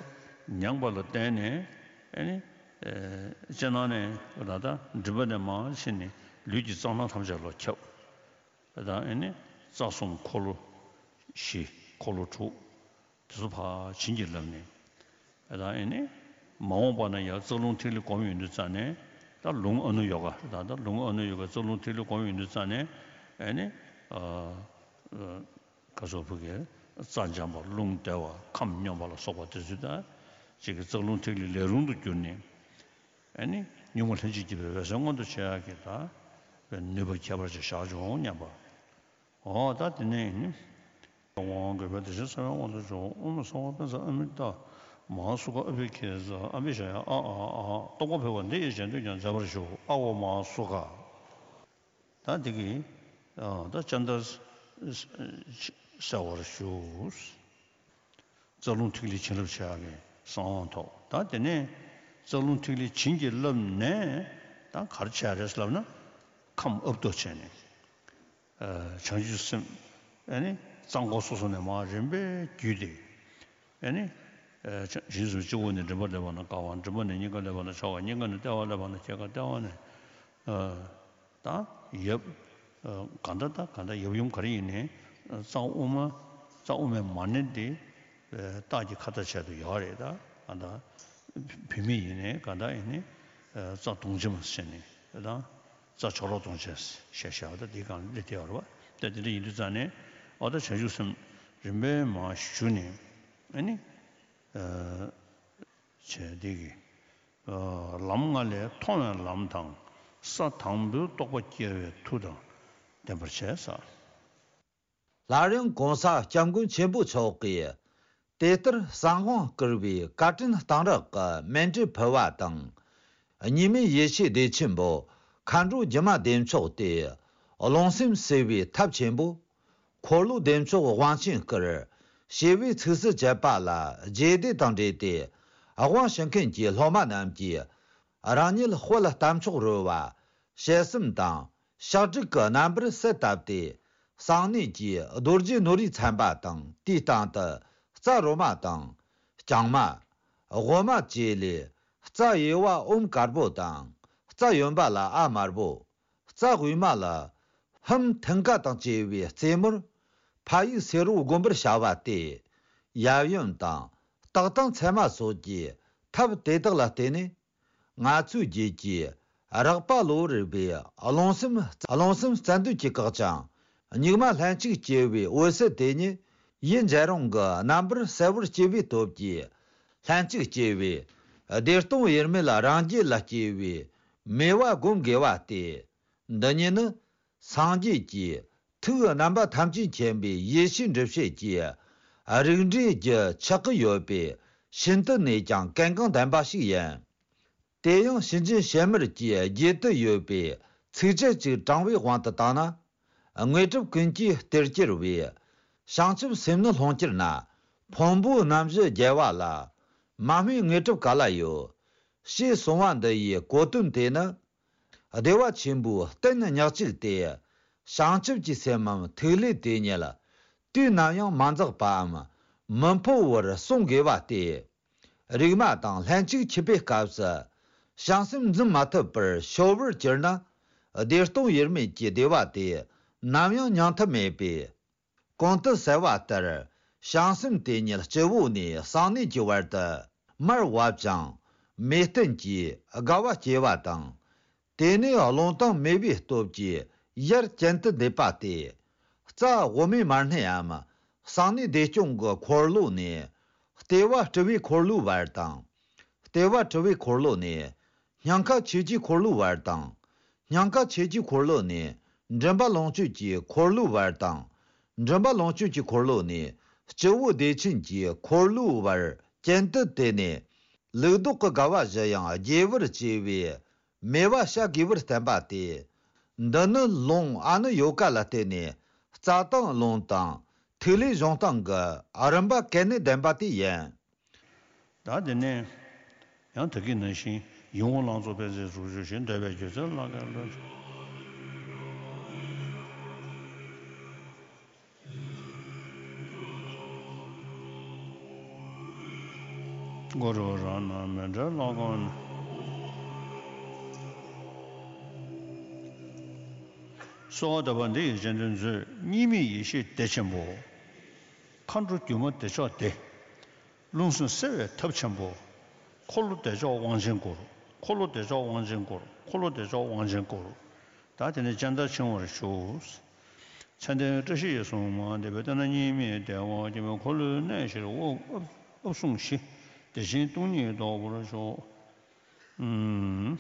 མྱངས་པ་ལ་བརྟེན་ནས་ཨ་ནི་ཨེ་སྤྱིར་བཏང་ནས་ད་ལྟ་མགྲིན་པ་ནས་མར་ཕྱིན་ནས་ལུས་ཀྱི་རྩ་ནང་ཐམས་ཅད་ལ་ཁྱབ། ད་ཨ་ནི་རྩ་གསུམ་འཁོར་ལོ་བཞི། འཁོར་ལོ་དྲུག་དེ་ཚོ་ཕར་བྱིན་གྱིས་བརླབས་ནས། ད་ཨ་ནི་མ་འོངས་པ་ན་ཡང་རྩ་རླུང་ཐིག་ལེ་གོམས་ཡོང་དུས་ཙ་ནས། ད་ ད་ལུང་ཨ་ནུ་ཡོ་ག་ད་ད་ལུང་ཨ་ནུ་ཡོ་ག་རྩ་རླུང་ཐིག་ལེ་སྒོམ་ཡོང་དུས་ཙ་ནས་ཨེ་ནི། ཨ་ཨ་ག་སོགས་བུ་གའི་རྩ་འཇམ་པ་རླུང་བདེ་བ་ཁམས་སྙོམས་པ་ལ་སོགས་པ་དེ་ཚོའི་ད་ཅིག་གི་རྩ་རླུང་ཐིག་ལེ་ལས་རུང་དུ་གྱུར་ནས་ཨེ་ནི་གཉུག་མ་ལྷན་ཅིག་སྐྱེས་པའི་འོད་གསལ་མངོན་དུ་བྱེད་ཡག་གི་ད་ནུས་པ་ཁྱད་པར་ཅན་བཞག་བྱུང་སྙམ་པ། འོ་ད་དེ་ནས་ནི། དབང་གི་བོད་དེ་བཞིན་གསང་བའི་དབང་དུ་འཇོག་ཨོཾ་སྭ་བྷཱ་ཏ་ས་ཨ་མི་ཏ། མ་ཧཱ་སུ་ཁ་ཨ་བྷི་ཥི་ཛ་ཨ་བྷི་ཥ་ཡ་ཨ་ཨ་ཨ། རྟོགས་པ་འཕེལ་བ་འདི་ཡིས་གཞན་དོན་ཀྱང་མཛད་པར་ཞུ། ཨ་ཝ་མ་ཧཱ་སུ་ཁ། ད་འདི་གིས་ད་སྤྱན་ལྟར་གསལ་བར་ཞུ། རྩ་རླུང་ཐིག་ལེ་བྱིན་རླབས་ཆེ་བ་གི་གསང་བ་ཐོབ། ད་དེ་ནས་རྩ་རླུང་ཐིག་ལེ་བྱིན་གྱིས་བརླབས་ནས་ད་ག་རེ་བྱས་རེད་ལབ་ན། ཁམས་ཨབ་ཏུ་བྱས་ནས། བྱང་ཆུབ་སེམས་ཨ་ནི་རྩ་འཁོར་སོ་སོ་ནས་མར་རིམ་པས་བརྒྱུད་དེ་ཨ་ནི་བྱང་ཆུབ་སེམས་སྤྱི་བོ་ནས་མགྲིན་པར་སླེབས་པ་ན་དཀར་བ། མགྲིན་པ་ནས་སྙིང་གར་སླེབས་པ་ན་ཕྱོགས་པ། སྙིང་ག་ནས་ལྟེ་བར་སླེབས་པ་ན་སྐྱེ་རྒ་ལྟེ་བ་ནས། ད་ཡབ་ག་འདྲ་ད་ག་འདྲ་ཡབ་ཡུམ་ག་རེ་ཡིན་ནའི་རྩ་དབུ་མ་རྩ་དབུ་མའི་མ་ཎི་དེ་རྟགས་ཀྱི་ཁ་ཏ་བྱས་དུ་ཡོད་རེད། ད་ག་འདྲ་བུད་མེད་ཡིན་ནའི་ག་འདྲ་ཡིན་ནའི་རྩ་གདོང་ཅན་མ་ཟེར་ནས་ད། རྩ་མཆོག་རོ་གདོང་ཅན་ཞེས་བྱ་བ་དང་དེའི་སྒང་ལ་སླེབས་བསྡད་ཡོད་རེད་པ། ད་དེ་འདྲ་ཡིན་དུས་ཙང་ནས་ཨོ་ད་བྱང་ཆུབ་སེམས་རིམ་པས་མར་ཞུ་ནས་ཨ་ནི་བྱས་དེ་གི་ལམ་ལྔ་ལས་མཐོ་བའི་ལམ་དང་ས་དང་པོའི་རྟོགས་པ་སྐྱེ་བའི་མཐུ་དང་ལྡན་པར་བྱས་ས། སླར་ཡང་གོང་ས་སྐྱབས་མགོན་ཆེན་པོ་མཆོག་གིས་དེ་ལྟར་གསང་དབང་བསྐུར་བའི་བཀའ་དྲིན་གཏང་རག་གི་མཎྜལ་ཕུལ་བ་དང་། གཉིས་མེད་ཡེ་ཤེས་བདེ་ཆེན་པོ་མཁའ་འགྲོ་སྒྱུ་མ་བདེ་མཆོག་སྟེ། རླུང་སེམས་བསྲེ་བའི་ཐབས་ཆེན་པོ། འཁོར་ལོ་བདེ་མཆོག་དབང་ཆེན་བསྐུར། ཞེས་པའི་ཚིགས་སུ་བཅད་པ་ལ་རྗེས་འདེད་དང་འབྲེལ་ཏེ། དབང་ཞུ་མཁན་གྱི་སློབ་མ་རྣམས་ཀྱིས་རང་ཉིད་དཔལ་རྟ་མཆོག་རོལ་བ་ཞལ་གསུམ་དང་། ཕྱག་དྲུག་གི་རྣམ་པར་གསལ་བཏབ་སྟེ། གསང་གནས་ཀྱི་རྡོ་རྗེ་ནོར་བུས་མཚན་པ་དང་། དེའི་སྟེང་དུ་རྩ་རོ་མ་དང་། རྐྱང་མ། དབུ་མ་བཅས་ལས། རྩ་གཡས་པ་ཨོཾ་དཀར་པོ་དང་། རྩ་གཡོན་པ་ལ་ཨ་དམར་པོ། རྩ་དབུས་མ་ལ་ཧཱུྃ་མཐིང་ག་དང་བཅས་པའི་རྩེ་མོར་ཕ་ཡིག་སེར་པོ་བསྒོམ་པར་བྱ་བ་སྟེ། ཡབ་ཡུམ་དང་སྟག་དང་མཚེ་མ་སོགས་ཀྱི་ཐབས་དེ་དག་ལ་བརྟེན་ནས། ང་ཚོའི་རྒྱུད་ཀྱི་རགས་པ་གློ་བུར་བའི་རླུང་སེམས། རླུང་སེམས་རྩ་འདུས་ཀྱི་བཀག་ཅིང་། གཉུག་མ་ལྷན་ཅིག་སྐྱེས་པའི་འོད་གསལ་དེ་ཉིད་ཡུལ་འཇའ་རིང་གི་རྣམ་པར་གསལ་བར་སྐྱེ་བའི་སྟོབས་ཀྱིས། ལྷན་ཅིག་སྐྱེས་པའི་བདེ་སྟོང་དབྱེར་མེད་རང་རྒྱལ་ལ་སྐྱེ་བའི་མོས་པ་བསྒོམ་དགོས་པ་སྟེ། འདི་ཉིད་ནི་སངས་རྒྱས་ཀྱི་ཐུགས་རྣམ་པ་ཐམས་ཅད་མཁྱེན་པའི་ཡེ་ཤེས་འགྲུབ་བྱེད་ཀྱི་རིགས་འགྲེའི་རྒྱུ་ཆགས་ཀྱི་ཡོད་པས་ཤིན་ཏུ་ནས་ཀྱང་གལ་འགངས་ལྡན་པ་ཞིག་ཡིན། དེ་ཡང་སེམས་ཅན་ཕྱི་མར་གྱི་རྒྱུད་དུ་ཡོད་པའི་ཚིགས་བཅད་ཅིག་དྲང་བའི་དབང་དུ་བཏང་ན། དངོས་གྲུབ་ཀུན་གྱི་གཏེར་གྱུར་བའི། བྱང་ཆུབ་སེམས་ནི་ལྷུན་གྱུར་ན། ཕུང་པོའི་རྣམ་བཞི་རྒྱལ་བ་ལ། མ་སྨོས་དངོས་གྲུབ་ག་ལ་ཡོད། ཞེས་གསུངས་པ་འདི་ཡི་གོ་དོན་དེ་ནི། བདེ་བ་ཆེན་པོའི་རྟེན་ཉག་གཅིག་སྟེ། བྱང་ཆུབ་ཀྱི་སེམས་མམ་ཐིག་ལེ་དེ་ཉིད་དུས་ནམ་ཡང་མ་འཛག་པའམ་མི་འཕོ་བར་བསྲུང་དགོས་པ་སྟེ། རིག་མ་དང་ལྷན་ཅིག་འཁྱུད་པའི་སྐབས་སུ། བྱང་སེམས་འཛིན་མ་ཐུབ་པར་ཤོར་བར་གྱུར་ན། བདེ་སྟོང་དབྱེར་མེད་ཀྱི་བདེ་བ་དེ་ནམ་ཡང་མྱང་ཐབས་མེད་པས། གོང་དུ་གསལ་བ་ལྟར། བྱང་སེམས་དེ་ཉིད་སྤྱི་བོ་ནས་གསང་གནས་ཀྱི་བར་དུ་མར་བབས་ཀྱང་། མེ་སྟེན་གྱིས་དགའ་བ་སྐྱེ་བ་དང་། དེ་ནས་རླུང་དང་མེ་བའི་སྟོབས་ཀྱིས་ཡར་གྱེན་དུ་འདེད་པ་སྟེ། རྩ་དབུ་མའི་མར་སྣེའམ་གསང་གནས་བདེ་སྐྱོང་གི་འཁོར་ལོ་ནས་ལྟེ་བ་སྤྲུལ་པའི་འཁོར་ལོའི་བར་དང་། ལྟེ་བ་སྤྲུལ་པའི་འཁོར་ལོ་ནས་སྙིང་ཁ་ཆོས་ཀྱི་འཁོར་ལོའི་བར་དང་། སྙིང་ཁ་ཆོས་ཀྱི་འཁོར་ལོ་ནས་མགྲིན་པ་ལོངས་སྤྱོད་ཀྱི་འཁོར་ལོའི་བར་དང་། མགྲིན་པ་ལོངས་སྤྱོད་ཀྱི་འཁོར་ལོ་ནས་སྤྱི་བོ་བདེ་ཆེན་གྱི་འཁོར་ལོའི་བར་གྱེན་དུ་དེད་ནས། ལུགས་ལྡོག་གི་དགའ་བ་བཞི་ཡང་རྒྱས་པར་བྱས་པའི་མོས་པ་བྱ་དགོས་པར་བསྟན་པ་སྟེ། འདི་ནི་ལུང་ཨ་ནུ་ཡོ་ག་ལ་བརྟེན་ནས་རྩ་དང་རླུང་དང་ཐིག་ལེ་བྱུང་སྟངས་ཀྱི་རིམ་པ་གལ་གནད་ལྡན་པ་དེ་ཡིན། ད་དེ་ནས་ཡང་དེ་གའི་ནང་བཞིན་ཡིད་འོང་ལང་ཚོ་པད་ཚལ་གཟུགས་བརྗོད་བཞིན་འདོད་པའི་སྒྱུ་རྩལ་ལ་གལ་ལོ། གུ་རུ་རང་སྣང་མི་འབྲལ་ལ་དགོངས་ནས། གསོལ་བ་འདེབས་པ་འདི་ཡི་རྗེས་ཟློས་མཛོད། གཉིས་མེད་ཡེ་ཤེས་བདེ་ཆེན་པོ། མཁའ་འགྲོ་སྒྱུ་མ་བདེ་མཆོག་སྟེ། རླུང་སེམས་བསྲེ་བའི་ཐབས་ཆེན་པོ། འཁོར་ལོ་བདེ་མཆོག་དབང་ཆེན་སྐུར། འཁོར་ལོ་བདེ་མཆོག་དབང་ཆེན་བསྐོར། འཁོར་ལོ་བདེ་མཆོག་དབང་ཆེན་བསྐོར། ད་དེ་ནས་སྤྱན་ལྟར་འཆིང་བར་ཞུ། མཚན་ལྡན་བཀྲ་ཤིས་ཡིད་སུན་མ་འདས་པའི་དེ་ན་གཉིས་མེད་བདེ་བ་སྐྱེ་བའི་འཁོར་ལོའི་གནས་བཞིར་དབུ་ཨབ་ཨབ་བཟུང་ཞི། བདེ་ཆེན་སྟོང་ཉིད་རྟོགས་པར་ཤོག། ཨུམ།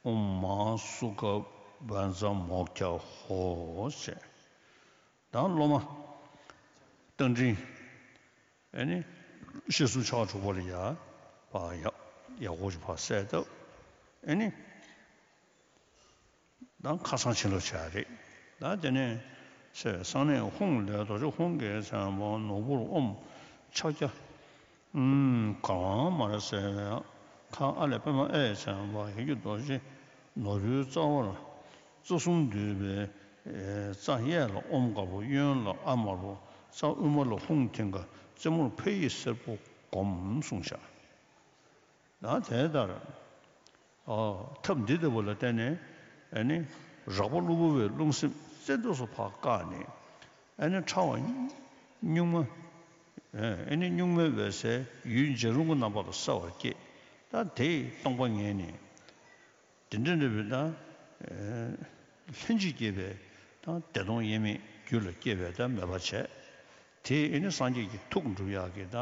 ཨོཾ་མ་སུ་ཁ་བཛྲ་མོཀྵ་ཧོ་ཟེར། ད་སློབ་མ་རྟ་མགྲིན་ཨེ་ནི་ཤེས་གསུམ་ཕྱོགས་དྲུག་པ་ལ་ཡ་ཕ་ཡག་ཡག་པོ་ཞིག་ཕར་གསལ་བཏབ། ཨེ་ནི་ད་ཁ་སང་ཕྱིན་ལོག་བྱས་རེད། ད་དེ་ནས་ཚེ་གསང་གནས་ཧཱུྃ་ལས་རྡོ་རྗེ་ཧཱུྃ་གི་མཚན་པ་ནོར་བུར་ཨོཾ་ཕྱག་རྒྱ། ཨུམ། གར་དབང་མར་གསལ་བའི་ཁ་ཨ་ལས་པདྨ་ཨའི་མཚན་པ་ཡེ་ཤེས་རྡོ་རྗེ་ནོར་བུའི་རྩ་བར་རྩ་གསུམ་འདུས་པའི་རྩ་གཡས་ལ་ཨོཾ་དཀར་པོ། གཡོན་ལ་ཨ་དམར་པོ། རྩ་དབུ་མ་ལ་ཧཱུྃ་མཐིང་ག། རྩེ་མོར་ཕ་ཡི་སེར་པོ་བསྒོམ་གསུངས་བཞག། ད་དེ་ལྟར་ཨོ་ཐབས་འདི་ལྟ་བུ་ལ་བརྟེན་ནས་ཨེ་ནི་རགས་པ་གློ་བུར་བའི་རླུང་སེམས་རྩེ་འདོད་སུ་ཕར་བཀག་ནས། ཨེ་ནི་ཕྲ་བ་གཉུག་མ། ཨེ་ནི་གཉུག་མའི་འོད་གསལ་ཡུལ་འཇའ་རིང་པོ་རྣམ་པ་ལ་གསལ་བར་བསྐྱེད། ད་དེས་སྟོང་པ་ངེས་ནས། དེ་འདྲ་འདྲ་བའི་ད་ལྷན་ཅིག་སྐྱེས་པའི་ད་བདེ་སྟོང་དབྱེར་མེད་རྒྱུད་ལ་སྐྱེ་བའི་ད་མོས་པ་བྱས། དེ་ཨེ་ནི་སངས་རྒྱས་ཀྱི་ཐུགས་འགྲུབ་ཡག་གི་ད་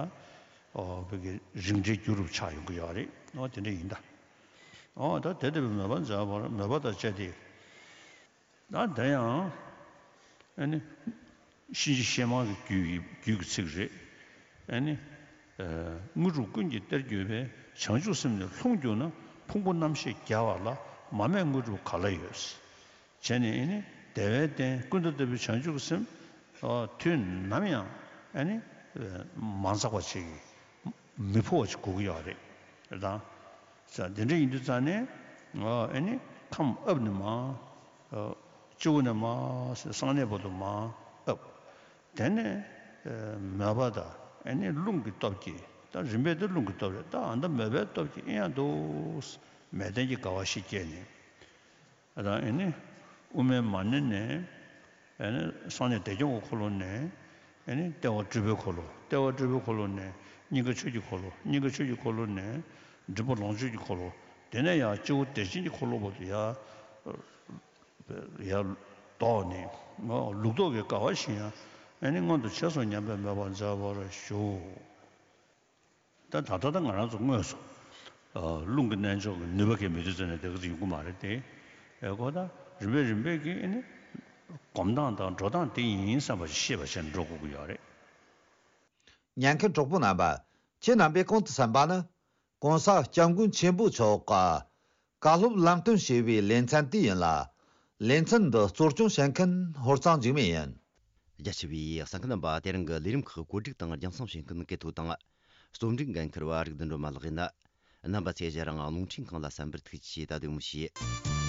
ཨོ་བོད་ཀྱི་རིགས་འགྲེའི་རྒྱུ་རུ་ཆགས་ཡོང་གི་ཡོད་རེད། ཨོ་དེ་འདྲ་ཡིན་ད། ཨོ་ད་དེ་ལྟ་བུའི་མོས་པ་མཛད་པར་མོས་པ་དང་བཅས་ཏེ། ད་དེ་ཡང་ཨེ་ནི་གཤིན་རྗེ་གཤེད་མ་གི་རྒྱུད་ཀྱི་རྒྱུད་ཀྱི་ཚིག་རེད། ཨེ་ནི་དངོས་གྲུབ་ཀུན་གྱི་གཏེར་གྱུར་པའི་བྱང་ཆུབ་སེམས་ནི་ལྷུང་གྱུར་ན། ཕུང་པོ་རྣམ་ཤེས་རྒྱལ་བ་ལ། མ་རྨད་དངོས་གྲུབ་ག་ལ་ཡོད། བྱས་ནས་ཨེ་ནི་བདེ་བའི་སྟན་ཀུན་ཏུ་བསྟོད་པའི་བྱང་ཆུབ་སེམས་དུས་ནམ་ཡང་ཨེ་ནི་མ་འཛག་པ་ཅིག་མི་འཕོ་བ་ཅིག་དགོས་ཀྱི་ཡོད་རེད། རེད་དང་། ས་དེ་འདྲ་ཡིན་དུས་ཙང་ནས་ཨེ་ནི་ཁམས་ཨབ་ནས་མར་སྤྱི་བོ་ནས་མར་གསང་གནས་བར་དུ་མར་ཨབ། དེ་ནས་མོས་པ་དང་ཨེ་ནི་རླུང་གི་སྟོབས་ཀྱིས། ད་རིམ་པས་དེ་རླུང་གི་སྟོབས་རེད། ད་ཨ་ད་མོས་པའི་སྟོབས་ཀྱིས་ཨེ་ཡང་དུ་མལ་སྟན་གྱི་དགའ་བ་ཞིག་སྐྱེས་ནས། ཨ་ད་ཨེ་ནི་དབུ་མའི་མ་ཎི་ནས། ཨེ་ནི་གསང་གནས་བདེ་སྐྱོང་གི་འཁོར་ལོ་ནས། ཨེ་ནི་ལྟེ་བ་སྤྲུལ་པའི་འཁོར་ལོ། ལྟེ་བ་སྤྲུལ་པའི་འཁོར་ལོ་ནས་སྙིང་ག་ཆོས་ཀྱི་འཁོར་ལོ། སྙིང་ག་ཆོས་ཀྱི་འཁོར་ལོ་ནས་མགྲིན་པ་ལོངས་སྤྱོད་ཀྱི་འཁོར་ལོ། དེ་ནས་ཡང་སྤྱི་བོ་བདེ་ཆེན་གྱི་འཁོར་ལོ་བར་དུ་ཡར་ཡར་ལྡོག་ནས་ལུགས་ལྡོག་གི་དགའ་བ་བཞིན་ཡང་ཨེ་ནི་མངོན་དུ་བྱས་སོ་སྙམ་པའི་མོས་པ་མཛད་པར་ཞུ། ད་ད་ལྟ་ད་ང་རང་ཚོ་དངོས་སུ་རླུང་གི་རྣལ་འབྱོར་གྱི་ནུས་པ་གས་མི་དུས་ཙམ་ནས་དེ་ག་ཚོད་ཡོང་གི་མ་རེད་དེ། ཨེ་གོ་ད་རིམ་པས་རིམ་པས་ཀྱིས་ཨེ་ནི་སྒོམ་སྟངས་དང་འགྲོ་སྟངས་དེ་ཡིན་བསམ་པ་ཞིག་ཤེས་པ་བྱས་ནས་འགྲོ་དགོས་ཀྱི་ཡོད་རེད། ཉན་མཁན་གྲོགས་པོ་རྣམ་པ། ཁྱེད་རྣམ་པས་གོང་དུ་གསན་པ་ནི། ྋགོང་ས་ྋསྐྱབས་མགོན་ཆེན་པོ་མཆོག་གིས་བཀའ་སློབ་ལམ་སྟོན་བྱས་པའི་ལེ་ཚན་དེ་ཡིན་ལ། ལེ་ཚན་འདི་གཙོ་སྐྱོང་བྱེད་མཁན་ཧོར་གཙང་འཇིགས་མེད་ཡིན། རྒྱ་ཆེ་བའི་གསན་མཁན་རྣམ་པ། དེ་རིང་གི་ལས་རིམ་ཁག་བཀོད་སྒྲིག་དང་རྒྱང་སྲིང་བྱེད་མཁན་གལ་ཐོ་དང་། རྩོམ་སྒྲིག་འགན་འཁུར་བ་རིག་ལྡན་སྒྲོལ་མ་ལགས་ཡིན། རྣམ་པ་ཚོས་ང་རང་རླུང་འཕྲིན་ཁང་ལ་གསན་པར་ཐུགས་རྗེ་ཆེ། ད་དུང་མི་ཤེས།